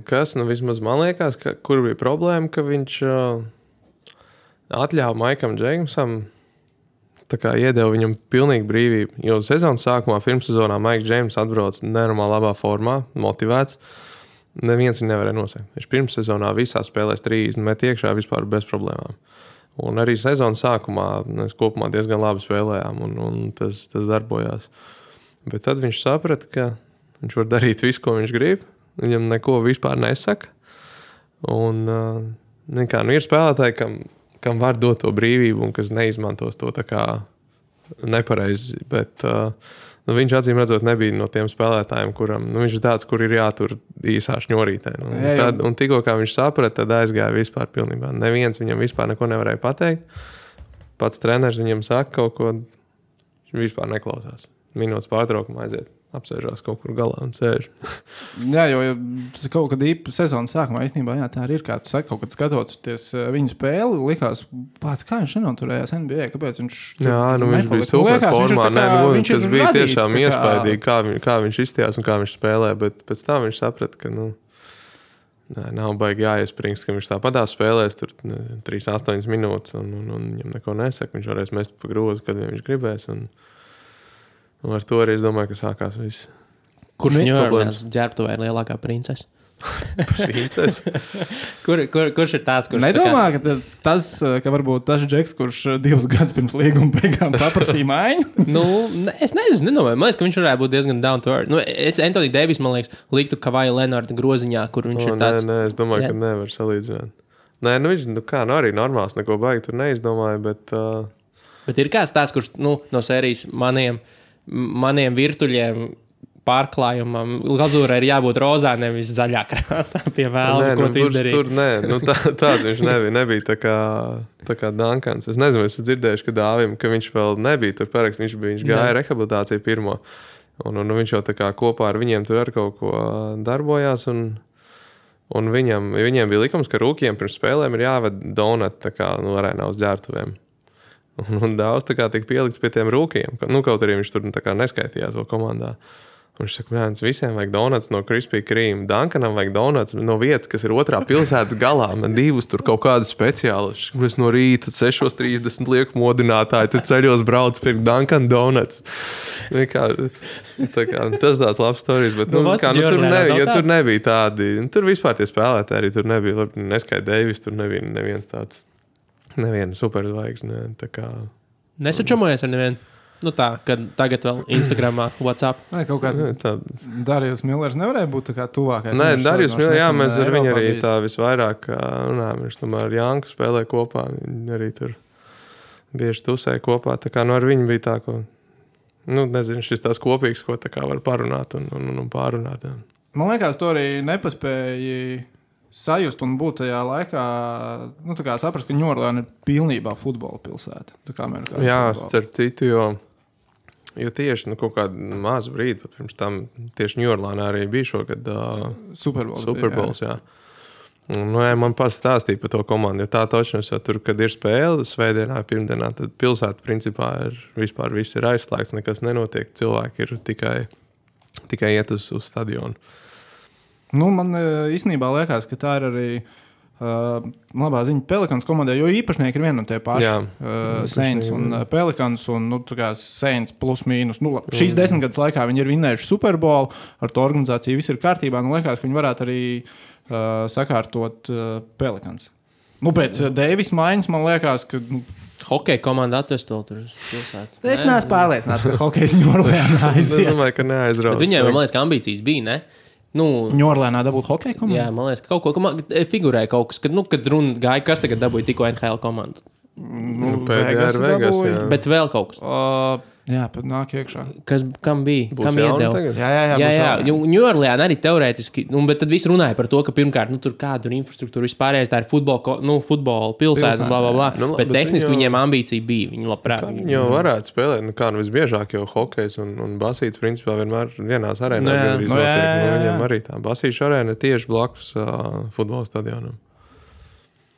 Vismaz man liekas, kur bija problēma, ka viņš atļāva Maikam Džeimsam tā kā iedeva viņam pilnīgi brīvību. Jo sezonas sākumā, pirmssezonā Maiks Džeims atbrauc nenormāli labā formā, motivēts. Neviens viņu nevarēja nosēkt. Viņš pirmssezonā visā spēlēs 30 met iekšā vispār bez problēmām. Un arī sezonas sākumā mēs kopumā diezgan labi spēlējām, un tas darbojās. Bet tad viņš saprata, ka viņš var darīt visu, ko viņš grib. Viņam neko vispār nesaka. Un ir spēlētāji, kam var dot to brīvību un kas neizmantos to tā kā nepareizi. Bet viņš acīm redzot nebija no tiem spēlētājiem, kuram viņš ir tāds, kur ir jātur īsā šņorītē. Un tikko kā viņš saprata, tad aizgāja vispār pilnībā. Neviens viņam vispār neko nevarēja pateikt. Pats treneris viņam saka kaut ko, viņš vispār neklausās. Minūtes pārtraukumā aiziet, apsēžās kaut kur galā un sēž. Jā, jo kaut kad sezonas sākumā īstenībā, tā arī ir, kā tu saki, kaut kad skatoties viņa spēli, likās, kā viņš nenoturējās NBA, kāpēc viņš viņš bija super formā, tas bija tiešām iespaidīgi, kā viņš izstījās un kā viņš spēlē, bet pēc tam viņš saprata, ka, Nav baigi jāiespringst, ka viņš tāpatās spēlēs tur 3-8 minūtes un viņam neko nesaka. Viņš varēs mest pa grozu, kad viņš gribēs. Un ar to arī es domāju, ka sākās viss. Kurš Ņujorkās ģērbtuvē ir lielākā princese? Princese? Kurš ir tāds, kurš... Nedomā, ka varbūt tas Džeks, kurš 2 gadus pirms līguma beigām paprasīja maiņu? Es nedomāju. Man liekas, ka viņš varētu būt diezgan down to earth. Es Anthony Davis, man liekas, liktu Kavaja Leonarda groziņā, kur viņš ir tāds... Nē, es domāju, ka nevar salīdzināt. Nē, viņš arī normāls, neko baigi tur neizdomāja, bet... Bet ir kāds tāds, kurš no sērijas maniem virtuļiem pārklājumam glazūrai ir jābūt rozā, nevis zaļā krāsā pie vēlna, ko tu izdarīji. Tāda viņš nebija tā kā Duncans. Es nezinu, es dzirdējuši, ka Dāvim, ka viņš vēl nebija tur parakst, viņš gāja rehabilitāciju pirmo. Un viņš jau tā kā kopā ar viņiem tur ar kaut ko darbojās. Un viņiem bija likums, ka rūkiem pirms spēlēm ir jāved donut tā kā arēnā uz ģērbtuvēm. Un daudz tā kā tika pielikts pie tiem rūkiem. Kaut arī viņš tur tā kā neskaitījās vēl komandā. Un viņš saka, visiem vajag donuts no Krispī Krīma. Duncanam vajag donuts no vietas, kas ir otrā pilsētas galā. Man 2 tur kaut kādas speciālas. Es no rīta 6:30 lieku modinātāji, tur ceļos brauc pirkt Duncan donuts. Tas tāds labs stories, bet tur nebija tādi. Tur vispār tie spēlētāji arī tur nebija. Neskai Davis, tur nebija neviens tāds. Neviena superzvaigzne. Nesačamojies ar nevienu? Kad tagad vēl Instagramā, WhatsApp. Nē, kaut kāds Darījus Millers nevarēja būt tā kā tuvākais. Nē, Darījus Millers, jā, mēs ar viņu arī tā visvairāk runājam. Viņš tomēr ar Janku spēlē kopā. Viņi arī tur bieži tusēja kopā. Tā kā ar viņu bija tā, ko, nezinu, šis tās kopīgs, ko tā kā var parunāt un pārunāt. Jā. Man liekas, to arī nepaspēja sajust un būt tajā laikā, saprast, ka Ņujorka ir pilnībā futbola pilsēta. Jā, starp citu, jo tieši kaut kādu mazu brīdi, pat pirms tam tieši Ņujorkā arī bija šogad Superbols. Jā. Un, man pastāstīja par to komandu, jo tā točnos, jo tur, kad ir spēle svētdienā, pirmdienā, tad pilsēta principā vispār viss ir aizslēgts, nekas nenotiek, cilvēki ir tikai iet uz stadionu. Man īstenībā liekas, ka tā ir arī labā ziņa Pelikans komandai, jo īpašnieki ir viena no tie paši. Saints un Pelikans un Saints plus mīnus. Šīs 10 gadus laikā viņi ir vinnējuši Superbolu, ar to organizāciju viss ir kārtībā. Liekas, ka viņi varētu arī sakārtot Pelikans. Pēc Deivis maiņas man liekas, ka... Hokeja komanda atvest vēl tur uz pilsētu. Es neesmu pārliecināts, ka hokejs Ņujorkā aiziet. Es domāju, ka neaizrauc. Bet viņiem, man liekas, ka ambīcijas bija, ne? Ņujorkā dabūt hokeja komandu? Jā, man liekas, ka kaut ko figurēja kaut kas, kad runa gāja, kas tagad dabūja tikko NHL komandu. Vegas, jā. Bet vēl kaut kas. Jā, pat nāk iekšā. Kam bija? Kam iedeva? Jā. Ņujorkā arī teorētiski, bet tad viss runāja par to, ka pirmkārt, tur kāda ir infrastruktūra vispārējais, tā ir futbola pilsēta, bla. Bet tehniski viņiem ambīcija bija, viņi labprāt. Viņi jau varētu spēlēt, visbiežāk jau hokejs un basīts principā vienmēr vienās arēnās. Viņiem arī tā basīša arēna tieši blakus futbola stadionam.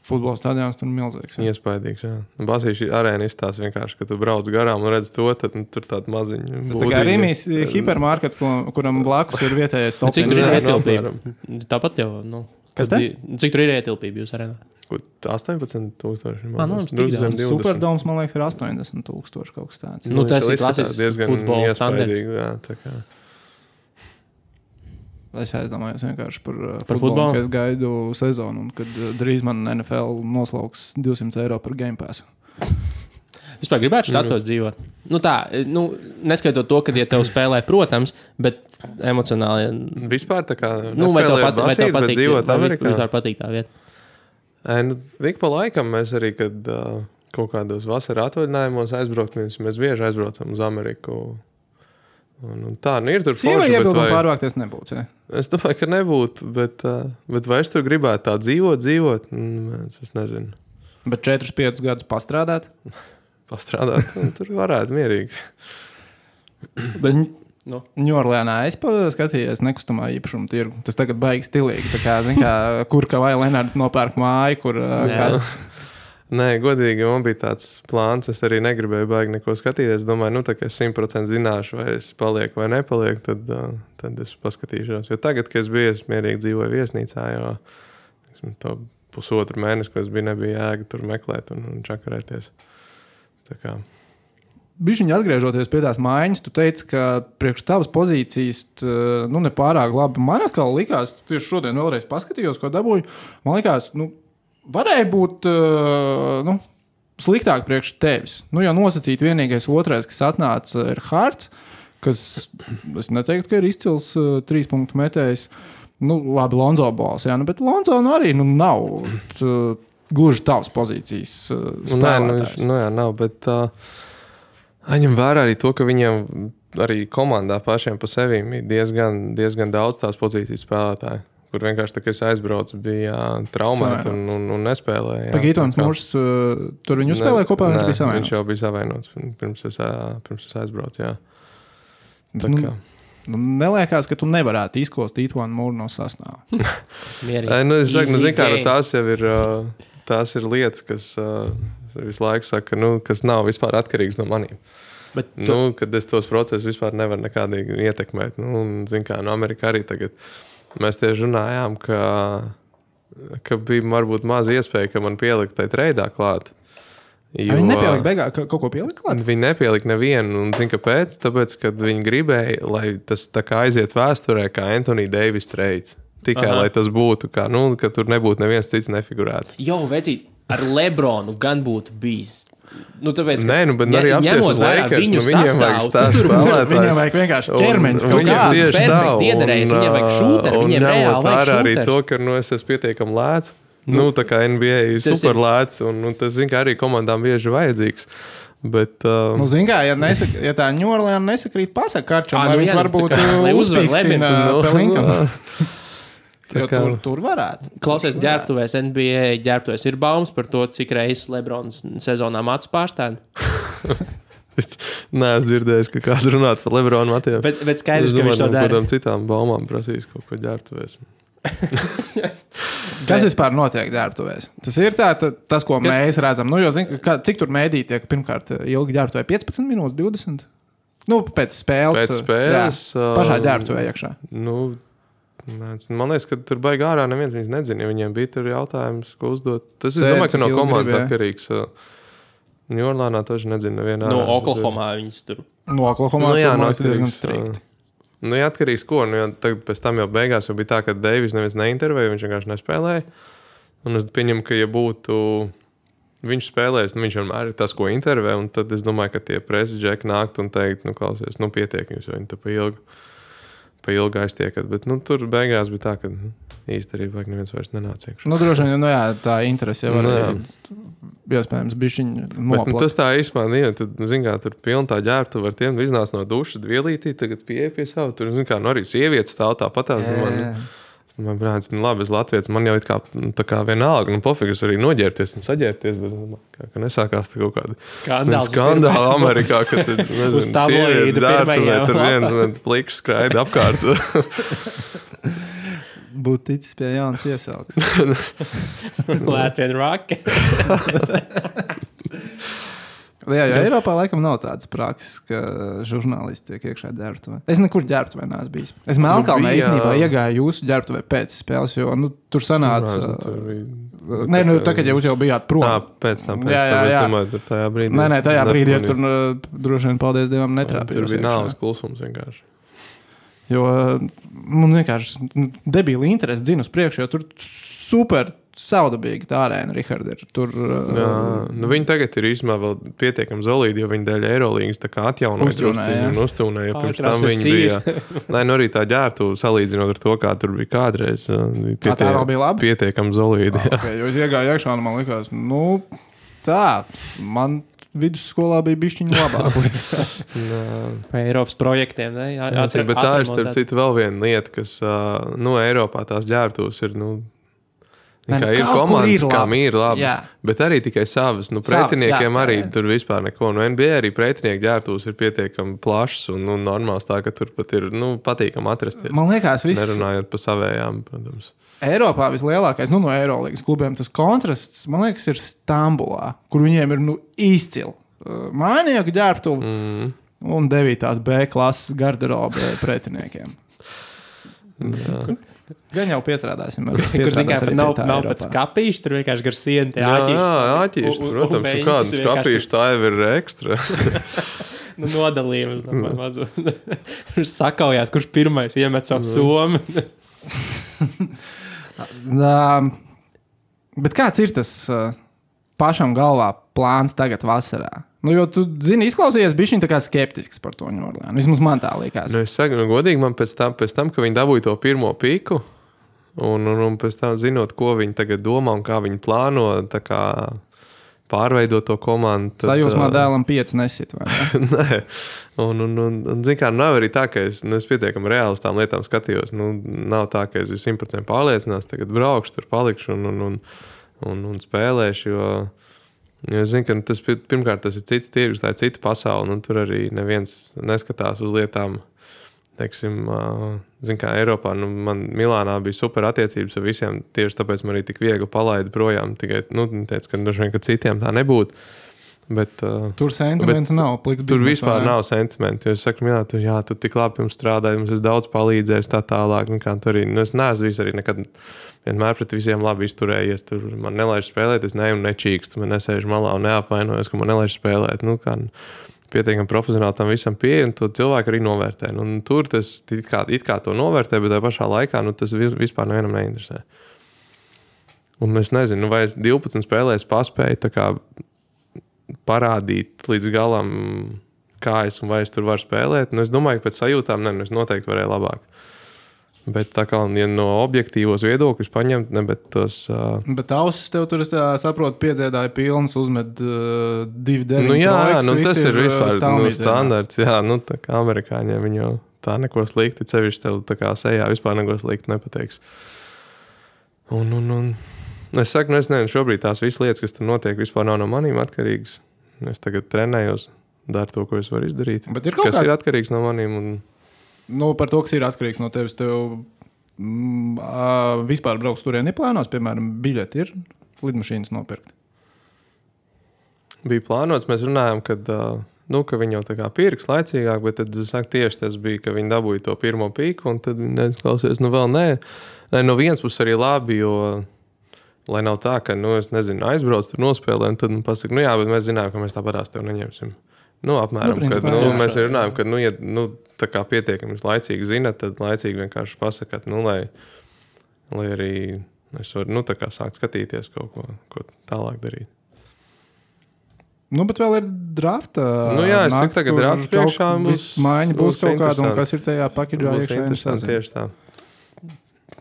Futbola stadions tur milzīgs. Iespaidīgs, jā. Basīša arēna izstāsta vienkārši, ka tu brauc garām un redz to, tad tur tāda maziņa. Tas tā kā Rīmijas hipermarkets, kuram blakus ir vietējais top. Cik tur ir ietilpība? Tāpat jau, Kas te? Cik tur ir ietilpība jūs arēnā? 18,000. Superdoms, man liekas, ir 80,000 kaut kas tāds. Tas ir klasisks futbola standards. Jā, tā kā. Es aizdomājos vienkārši par futbolu, ka es gaidu sezonu, un kad drīz man NFL noslauks 200 eiro par Game Passu. Vispār gribētu štatos dzīvot. Neskaitot to, kad tev spēlē, protams, bet emocionāli. Vispār tā kā vai tev patīk dzīvot Amerikā? Vispār patīk tā vieta? Tik pa laikam mēs arī, kad kaut kādos vasara atvaļinājumos aizbraukt, mēs bieži aizbraucam uz Ameriku. Un tā, ir tur forši, bet vai... pārvākties nebūtu, ja? Es domāju, ka nebūtu, bet vai es tur gribētu tā dzīvot? Es nezinu. Bet 4-5 gadus pastrādāt? Pastrādāt, tur varētu mierīgi. Bet Ņujorkā es skatījos nekustamā īpašuma tirgu. Tas tagad baigi stilīgi. Tā kā, kur Kavaja Leonards nopērk māju, kur kas... Nē, godīgi, man bija tāds plāns. Es arī negribēju baigi neko skatīties. Es domāju, tā kā es 100% zināšu, vai es palieku vai nepalieku, tad es paskatīšos. Jo tagad, kad es biju, es mierīgi dzīvoju viesnīcā, jo to pusotru mēnesi, ko es biju, nebija jēga tur meklēt un čakarēties. Tā kā... Bišķiņi atgriežoties pie tās maiņas, tu teici, ka priekš tavas pozīcijas nepārāk labi. Man atkal likās, tieši šodien vēlreiz paskatījos, ko dabūju. Man likās, varēja būt sliktāk priekš tevis. Jau nosacīt vienīgais otrais, kas atnāca, ir Hārts, kas, es neteiktu, ka ir izcils 3 punktu metējs. Labi, Lonzo bols, jā, bet Lonzo arī nav gluži tavas pozīcijas spēlētājs. Jā, nav, bet... Aņem vērā arī to, ka viņiem arī komandā pašiem pa sevīm ir diezgan daudz tās pozīcijas spēlētāji, kur vienkārši tā, ka es aizbraucu, bija traumēti un nespēlēja. Pagītons Mūrs, tur viņu spēlēja kopā, viņš bija savainots? Viņš jau bija savainots, pirms es aizbraucu, jā. Neliekas, ka tu nevarētu izkost Ītvanu Mūru no sastāvā. Es saku, kā tās ir lietas, kas... visu laiku saka, kas nav vispār atkarīgs no maniem. Kad es tos procesus vispār nevaru nekādīgi ietekmēt. Amerikā arī tagad mēs tieši runājām, ka bija varbūt maz iespēja, ka man pielikt tai treidā klāt. Viņi nepielika beigā, kaut ko pielika klāt? Viņi nepielika nevienu, un zini, kāpēc? Tāpēc, kad viņi gribēja, lai tas tā kā aiziet vēsturē, kā Anthony Davis trades. Tikai, lai tas būtu, ka tur nebūtu neviens cits nefigurētu. Vecīt, ar Lebronu gan būtu bijis. Tāpēc, bet arī apsties Lakers, viņiem vajag stāst spēlētājs. Viņiem vajag vienkārši ķermenis kaut kāds perfekti iedarējis, viņiem vajag šūteri, viņiem reāli vajag šūteri. Arī to, ka es esmu pietiekami lēts, tā kā NBA ir super lēts, un tas, zin, kā arī komandām bieži vajadzīgs. Bet, zin kā, ja tā New Orleans nesakrīt pasaka Karčam, lai viņš varbūt uzspīkstina Pelinkam. Tur varētu. Klausies, ģērbtuvēs, NBA ģērbtuvēs ir baumas par to, cik reizes Lebrons sezonā matus pārstāv. Nē, es dzirdēju, ka kāds runāt par Lebronu matiem. Bet skaidrs, ka viņš to dara. Kādām citām baumām prasīs kaut ko ģērbtuvēs. Kas vispār notiek ģērbtuvēs? Tas ir tas, ko mēs redzam. Cik tur mēdī tiek pirmkārt ilgi ģērbtuvē? 15 minūtes, 20? Pēc spēles. Pašā ģērbtuvē iekšā. Man liekas, ka tur baigi ārā neviens viņus nezina, ja viņiem bija tur jautājums, ko uzdot. Tas, es domāju, ka no komandas atkarīgs. New Orleanā taču nezinu nevienā. No Oklahomā viņas tur. No Oklahomā tur diezgan strikti. Atkarīgs ko? Tagad pēc tam jau beigās jau bija tā, ka Deivis neviens neintervēja, viņš vienkārši nespēlēja. Un es pieņemu, ka ja būtu viņš spēlējis, viņš vienmēr ir tas, ko intervē, un tad es domāju, ka tie preses džeki nākt un teikt, klausies, pietiek jums, jo viņi tu pa ilgi aiztiekat, bet tur beigās bija tā, ka īsti arī vajag neviens vairs nenāca iekšā. Droši vien, tā interese jau var iespējams bišķiņ noplakt. Bet tas tā īstenībā, tu zini, kā tur pilna tā ģērbtu var tiem iznāc no duša, vielītī, tagad pieeja pie savu, tur zini, kā arī sievietes stāv tāpatās. Man brāns, labi, es Latvijas, man jau tā kā vienalga, pofīgi es arī noģērbties un saģērbties, bet kā nesākās tā kaut kāda skandāla Amerikā, ka tad, nezinu, sievietes ģērbtuvē, tur viens pliks skraida apkārt. Būtu ticis pie jaunas iesauks. Latvien rock. Jā, jo Eiropā laikam nav tādas prakses, ka žurnālisti tiek iekšā ģērbtuvē. Es nekur ģērbtuvē neesmu bijis. Es Melnkalnē īstenībā iegāju jūsu ģērbtuvē pēc spēles, jo tur sanāca... Tagad jūs jau bijāt prom. Pēc tam, es domāju, tur tajā brīdī... Nē, tajā brīdī es tur droši vien, paldies Dievam, netrāpījos. Tur bija nāves klusums vienkārši. Jo man vienkārši debīli interesi dzina uz priekšu, jo tur super saudabīgi tā arēna, Richard, ir tur... Viņi tagad ir īstenībā vēl pietiekami solīdi, jo viņi dēļ Eirolīgas tā kā atjaunoja un uztūnēja. Pirms tam viņi bija... arī tā ģērbtu salīdzinot ar to, kā tur bija kādreiz. Tā vēl bija labi? Pietiekami solīdi. Jo es iegāju iekšā un man likās, man vidusskolā bija bišķiņa labāk. Eiropas projektiem, ne? Bet tā ir starp citu vēl viena lieta, kas, Eiropā tās ģērbtuvas ir, Ir komandas, kam ir labas, bet arī tikai savas. Pretiniekiem arī tur vispār neko. NBA arī pretinieku ģērbtuves ir pietiekami plašs un normāls tā, ka tur pat ir patīkami atrasties. Man liekas, nerunājot par savējām, protams. Eiropā vislielākais, no Eirolīgas klubiem, tas kontrasts, man liekas, ir Stambulā, kur viņiem ir izcili mājinieku ģērbtuvi un 9. B klases garderobe pretiniekiem. Gan jau piestrādāsim. Kur zināmā mērā nav pēc skapīša, tur vienkārši gar sienu tie āķīši. Jā, āķīši, protams, un kādas skapīšas tā jau ir ekstra. Nodalījums. Sakaujās, kurš pirmais iemet savu somu. Bet kāds ir tas pašam galvā plāns tagad vasarā? Jo tu zini, izklausījies bišķiņ tā kā skeptisks par to Ņūorleānu. Vismaz man tā likās. Es saku, godīgi, man pēc tam, ka viņi dabūja to pirmo pīku, un pēc tam zinot, ko viņi tagad domā un kā viņi plāno, tā kā pārveidot to komandu. Sajūsmā dēlam 5 nesit, vai ne? Nē. Un zin kā, nav arī tā, ka es pietiekami reāli uz tām lietām skatījos. Nav tā, ka es 100% pārliecinās, tagad braukšu, tur palikšu un spēlēšu, jo es zinu, ka pirmkārt tas ir cits tirgus, tā ir cita pasaule, un tur arī neviens neskatās uz lietām. Teiksim, zinu, kā Eiropā, man Milānā bija super attiecības ar visiem, tieši tāpēc man arī tik viegli palaida projām, tikai, teica, ka droši vien, ka citiem tā nebūtu. Bet, tur sentimenti nav. Tur vispār nav sentimenti. Es saku, tu tik labi jums strādāji, mums es daudz palīdzējis tā tālāk. Es neesmu arī nekad vienmēr pret visiem labi izturējies. Tur man nelaiž spēlēt, es neju un nečīkstu. Man nesēžu malā un neapvainojos, ka man nelaiž spēlēt. Pietiekami profesionāli tam visam pieeja, un to cilvēku arī novērtē. Tur tas it kā to novērtē, bet tajā pašā laikā tas vispār nevienam neinteresē. Un es nezinu, vai es 12 spēlēs paspēju tā kā parādīt līdz galam, kā es un vai es tur varu spēlēt. Es domāju, ka pēc sajūtām es noteikti varēju labāk. Bet tā kā ja no objektīvos viedokļus paņemt, bet tos... Bet ausis tev tur, es saprotu, piedziedāja pilns, uzmet 2-9 tas ir vispār standarts. Jā, tā kā amerikāņiem viņi jau tā neko slikti, cevišķi tev tā kā sejā vispār neko slikti nepateiks. Un es saku, es nezinu, šobrīd tās visas lietas, kas tur notiek, vispār nav no manīm atkarīgas. Es tagad trenējos, daru to, ko es varu izdarīt. Kas ir atkarīgs no manīm. Par to, kas ir atkarīgs no tevis, tev vispār brauks turien neplānos, piemēram, biļeti ir lidmašīnas nopirkt? Bija plānots, mēs runājām, kad viņi jau tā kā pirks laicīgāk, bet tad, tieši tas bija, ka viņi dabūja to pirmo pīku, un tad viņi klausies, vēl nē. No vienas puses arī labi, jo lai nav tā, ka, es nezinu, aizbrauc tur nospēlē, un tad man pasaka, bet mēs zinām, ka mēs tāpatās tev neņemsim. Apmēram, principā, mēs runājam, ka, ja tā kā pietiekami laicīgi zina, tad laicīgi vienkārši pasakāt, lai arī es varu, tā kā sākt skatīties kaut ko tālāk darīt. Bet vēl ir drafta. Es saku, tagad drafts priekšā maiņa būs kaut kāda, un kas ir tajā pakidžā iekšā. Tieši tā.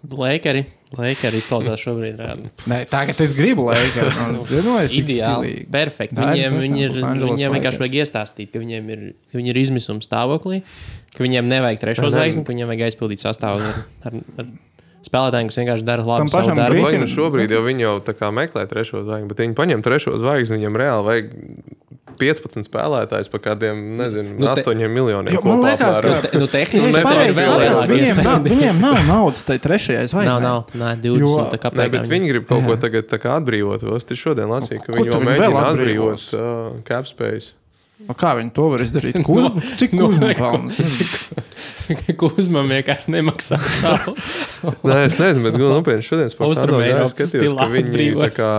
Lakeri izklausās šobrīd. Nē, tagad es gribu Lakeri. Ideāli, perfekti. Viņiem vienkārši vajag iestāstīt, ka viņi ir izmisuma stāvoklī, ka viņiem nevajag trešo zvaigzni, ka viņiem vajag aizpildīt sastāvu ar spēlētājiem, kas vienkārši dara labu savu darbu. Šobrīd jau viņi jau tā kā meklē trešo zvaigzni, bet viņi paņem trešo zvaigzni, viņam reāli vajag 15 spēlētājs par kādiem, 8 miljoniem. Man liekas, ka tehniski viņiem nav naudas tai trešajai zvaigznei. Nav, 20. Nē, bet viņi grib kaut ko tagad tā kā atbrīvot. Es šodien lasīju, ka viņi jau mēģina atbrīvot cap space. Kā viņi to var izdarīt? Cik Kuzma pelnas? Kuzmam vienkārši nemaksā savu. Nē, es nezinu, bet nopietni šodien skatījos, ka viņi tā kā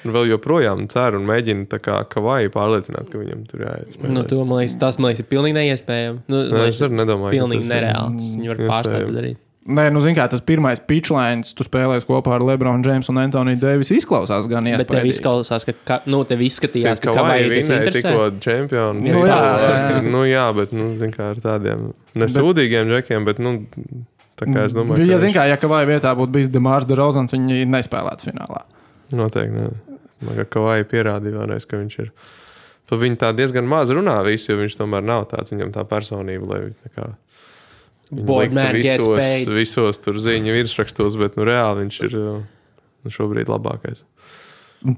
vēl joprojām cer un mēģina tā kā Kavaju pārliecināt, ka viņam tur jāiet spēlēt. Tas, man liekas, ir pilnīgi neiespējami. Es arī nedomāju, pilnīgi nereāls. Viņi var pārstāt darīt. Nē, zini kā, tas pirmais pitchlines, tu spēlēs kopā ar LeBron James un Anthony Davis, izklausās gan iespējīgi. Bet tev izklausās, ka tev izskatījās, ka Kavai tas interesē. Tikko čempioni. Jā, bet, zini kā, ar tādiem nesūdīgiem džekiem, bet, tā kā es domāju, ja zini kā, ja Kavai vietā būtu bijis DeMars DeRozans, viņi nespēlētu finālā. Noteikti, ne. Man kā Kavai pierādīja vēlreiz, ka viņš ir. Pa viņu tā diezgan maz runā visi, jo viņš tomēr nav tāds, viņam tā personība, lai tā kā Boy man gets paid. Visos tur ziņu virsrakstos, bet reāli viņš ir šobrīd labākais.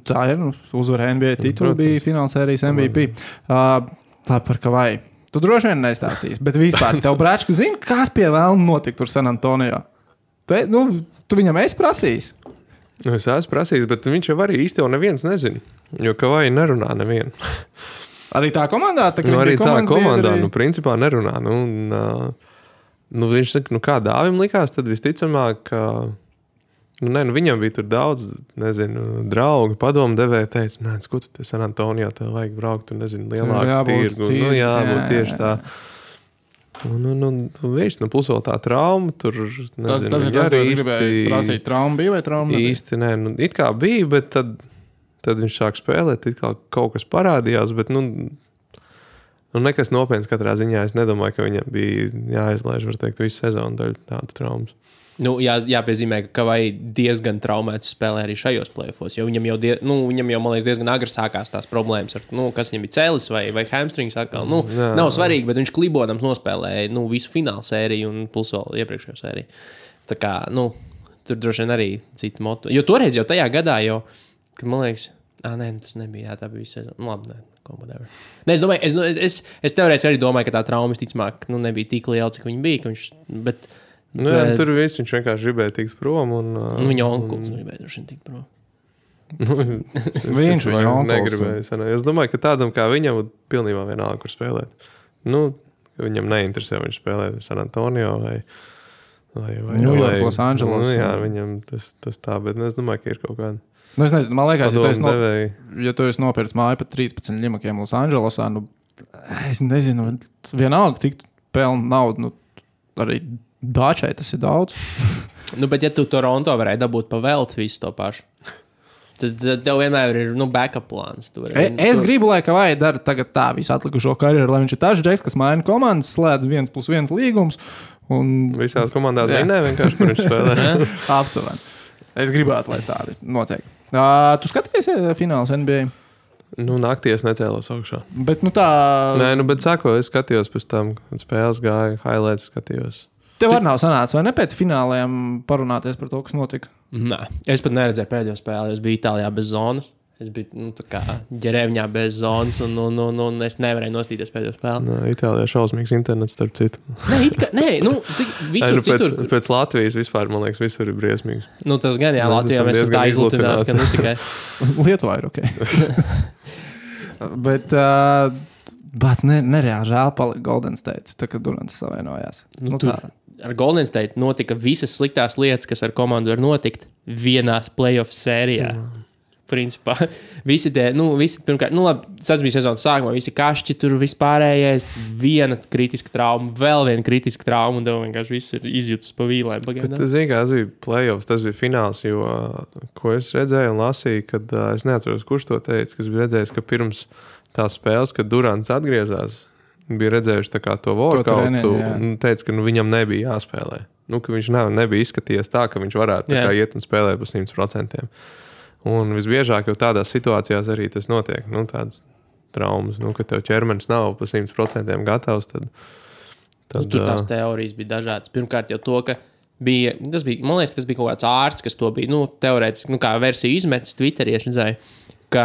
Tā ir, uzvarēja NBA titulu, bija finālsērijas MVP. Tā par Kavai. Tu droši vien nestāstīsi, bet vispār tev brāčka zina, kas pie vēlna notika tur San Antonio. Tu viņam esi prasījis? Es esmu prasījis, bet viņš jau arī īsti jau neviens nezina, jo Kavai nerunā nevienu. Arī tā komandā? Arī tā komandā, principā nerunā. Viņš saka, kā Dāvim likās, tad visticamāk, ka viņam bija tur daudz, draugi, padomdevēji teica, ko tu te San Antonio, tev vajag braukt, lielāku tirgu. Jābūt tieši tā. Viņš, plus vēl tā trauma, tur, tas ir tas, ko es gribēju prasīt. Trauma bija vai trauma nebija? Īsti, it kā bija, bet tad viņš sāk spēlēt, it kā kaut kas parādījās, bet, nekas nopietns katrā ziņā. Es nedomāju, ka viņam bija jāizlaiž, var teikt, visu sezonu daļu tādu traumas. Jāpiezīmē, ka Kavai diezgan traumēts spēlē arī šajos play-offos, jo viņam jau, man liekas, diezgan agri sākās tās problēmas ar, kas viņam bija cēlis vai hamstrings atkal. Nav svarīgi, bet viņš klibodams nospēlēja, visu finālu sēriju un plus vēl iepriekšējo sēriju. Tā kā, tur droši vien arī citu motu. Jo toreiz jau tajā gadā kad man liekas, tas nebija, tā bija visu sezonu. Labi, whatever. Es domāju, es teorētiski arī domāju, ka tā trauma visticamāk, nebija tik liela, cik viņa bija, bet tur viss viņš vienkārši gribēja tikt prom. Viņa onkuls gribēja droši vien tikt prom. Viņš viņa onkuls negribēja. Es domāju, ka tādam kā viņam pilnībā vienalga, kur spēlēt. Ka viņam neinteresē viņš spēlēt San Antonio vai New York, Los Angeles. Viņam tas tā, bet es domāju, ka ir kaut kāda. Es nezinu, man liekas, ja tu esi nopircis māju par 13 ļimakiem Los Angelesā, es nezinu, vienalga, cik pelna naudu, arī Dāčai tas ir daudz. Bet ja tu Toronto varēji dabūt pa velti visu to pašu, tad tev vienmēr ir backup plāns. Es gribu, lai Kavai dara tagad tā visu atlikušo karjeru, lai viņš ir tas džeks, kas maina komandas, slēdz 1+1 līgums. Visās komandās vinē vienkārši, kur viņš spēlē. Aptuveni. Es gribētu, lai tādi notiek. Tu skaties fināls NBA? Naktī es necēlos augšā. Bet tā... Nē, bet sāko, es skatījos pēc tam, kad spēles gāja, highlights skatījos. Tev arī nav sanācis, vai ne pēc fināliem parunāties par to, kas notika? Nē, es pat neredzēju pēdējo spēli. Es biju Itālijā bez zonas. Es biju tā kā ģerēvņā bez zonas, un es nevarēju nostīties pēdējo spēli. Itālijā šausmīgs internets, starp citu. Visur citur. Pēc Latvijas vispār, man liekas, visur ir briesmīgs. Tas gan, Latvijā mēs esam tā izlutināti, ka tikai. Lietuvā ir ok. Bet... Bāc, nereāli žēl palika Golden State, tā kā Durants savainojās. Ar Golden State notika visas sliktās lietas, kas ar komandu var notikt vienās playoff sērijā. Principā, visi pirmkārt, tas bija sezonas sākumā, visi kašķi tur vispārējais, viena kritiska trauma, vēl viena kritiska trauma, un tev vienkārši viss ir izjūtas pa vīlēm. Tas bija playoffs, tas bija fināls, jo, ko es redzēju un lasīju, kad es neatceros, kurš to teica, kas bija redzējis, ka pirms tās spēles, kad Durants atgriezās, bija redzējuši tā kā to workoutu un teica, ka viņam nebija jāspēlē. Ka viņš nebija izskatījies tā, ka viņš varētu tā kā iet un spēlēt pa 100%. Un visbiežāk jau tādās situācijās arī tas notiek. Tādas traumas, ka tev ķermenis nav pa 100% gatavs, tad tur tās teorijas bija dažādas. Pirmkārt jau to, ka man liekas, tas bija kaut kāds ārsts, kas to bija, teorētiski, kā versiju izmetis Twitterī, es redzēju, ka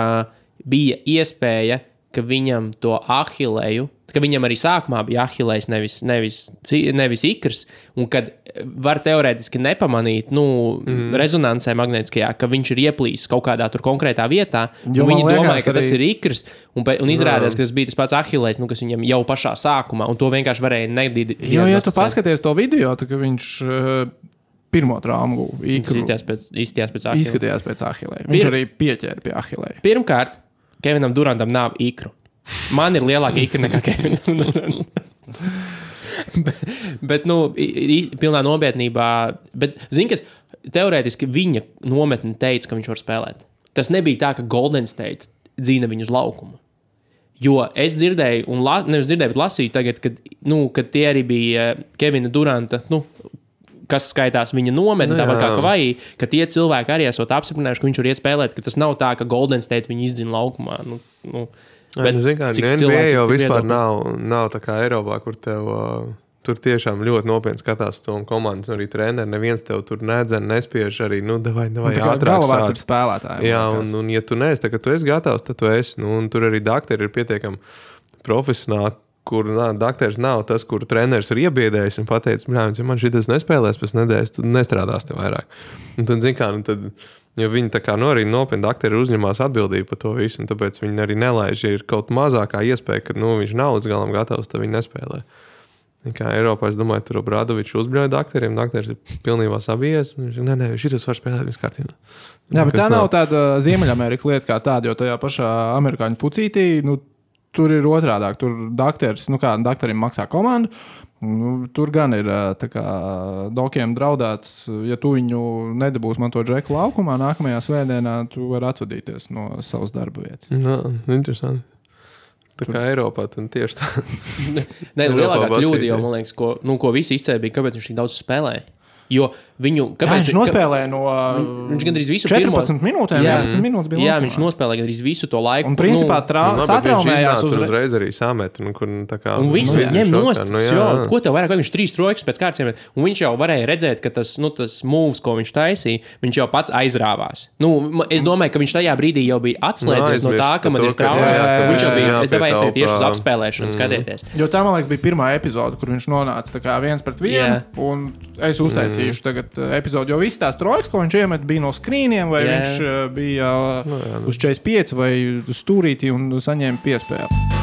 bija iespēja, ka viņam to ahilēju, ka viņam arī sākumā bija ahilējs, nevis ikrs, un kad var teorētiski nepamanīt, rezonansē magnētiskajā, ka viņš ir ieplīsis kaut kādā tur konkrētā vietā, un viņi domāja, ka tas ir ikrs, un izrādās, ka tas bija tas pats ahilējs, kas viņam jau pašā sākumā, un to vienkārši varēja nedīt. Jo, ja tu paskaties to video, tad viņš pirmo traumu izskatījās pēc ahilēja. Viņš arī pieķēra pie ahilēja. Pirmkārt, Kevinam Durantam nav ikru. Man ir lielāka ikra nekā Kevinam Durantam. bet pilnā nopietnībā. Bet, kas teorētiski viņa nometne teica, ka viņš var spēlēt. Tas nebija tā, ka Golden State dzīna viņu uz laukumu. Jo es dzirdēju, nevis dzirdēju, bet lasīju tagad, kad tie arī bija Kevina Duranta, kas skaitās viņa nometni, tāpat kā Kavai, ka tie cilvēki arī esot apstiprinājuši, ka viņš var iet spēlēt, ka tas nav tā, ka Golden State viņu izdzina laukumā. Bet NBA jau vispār nav tā kā Eiropā, kur tev tur tiešām ļoti nopietni skatās to komandas, arī treneri. Neviens tev tur nedzen, nespiež arī, davai ātrāk galvārds ar spēlētājiem. Jā, un ja tu neesi, tad, kad tu esi gatavs, tad tu esi. Un tur arī dakteri ir pietiekami profesionāli, kur dakteris nav tas, kur treneris ir iebiedējis un pateicis, ja man šitas nespēlēs pēc nedēļas, tad nestrādās te vairāk. Un tad, jo viņi tā kā arī nopietni dakteri uzņemās atbildību par to visu, un tāpēc viņi arī nelaiž, ja ir kaut mazākā iespēja, ka viņš nav līdz galam gatavs, tad viņi nespēlē. Kā Eiropā, es domāju, tur Obradovičs uzbļauja dakteriem, dakteris ir pilnībā sabijies, nē, šitas var spēlēt viss kārtībā. Jā, bet tā nav tāda Ziemeļamerikas lieta kā tāda, jo tajā pašā amerikāņu fucītī, tur ir otrādāk, tur dakteris, dakterim maksā komandu, tur gan ir tā kā dokiem draudēts, ja tu viņu nedabūs man to džeku laukumā, nākamajā svētdienā tu vari atsvadīties no savas darba vietas. Interesanti. Tā kā Eiropā, tad tieši tā. Nē, lielākā kļūda jau, man liekas, ko visi izcēbīja, kāpēc viņš tik daudz spēlēja. Jo viņu... Viņš nospēlēja no viņš gandrīz visu 14 minūtēm, 11 minūtes bija. Jā, viņš nospēlēja gandrīz visu to laiku. Un principā satraumējās uzreiz arī samet. Un visu ņem nost. Ko tev vairāk, vai viņš 3 trojkas pēc kārtas iemet? Un viņš jau varēja redzēt, ka tas moves, ko viņš taisīja, viņš jau pats aizrāvās. Es domāju, ka viņš tajā brīdī jau bija atslēdzies no tā, ka man ir trauma. Viņš jau bija, es devāju aiziet tieši uz apspēlēšanu, skatieties. Jo tā, man liekas, bija pirmā epizode, kur viņš nonāca tā kā 1-1, un es uztaisīšu tagad epizodi, jo viss tās trojkas, ko viņš iemet, bija no skrīniem, vai viņš bija uz 45 vai uz stūrītī un saņēma piespēli.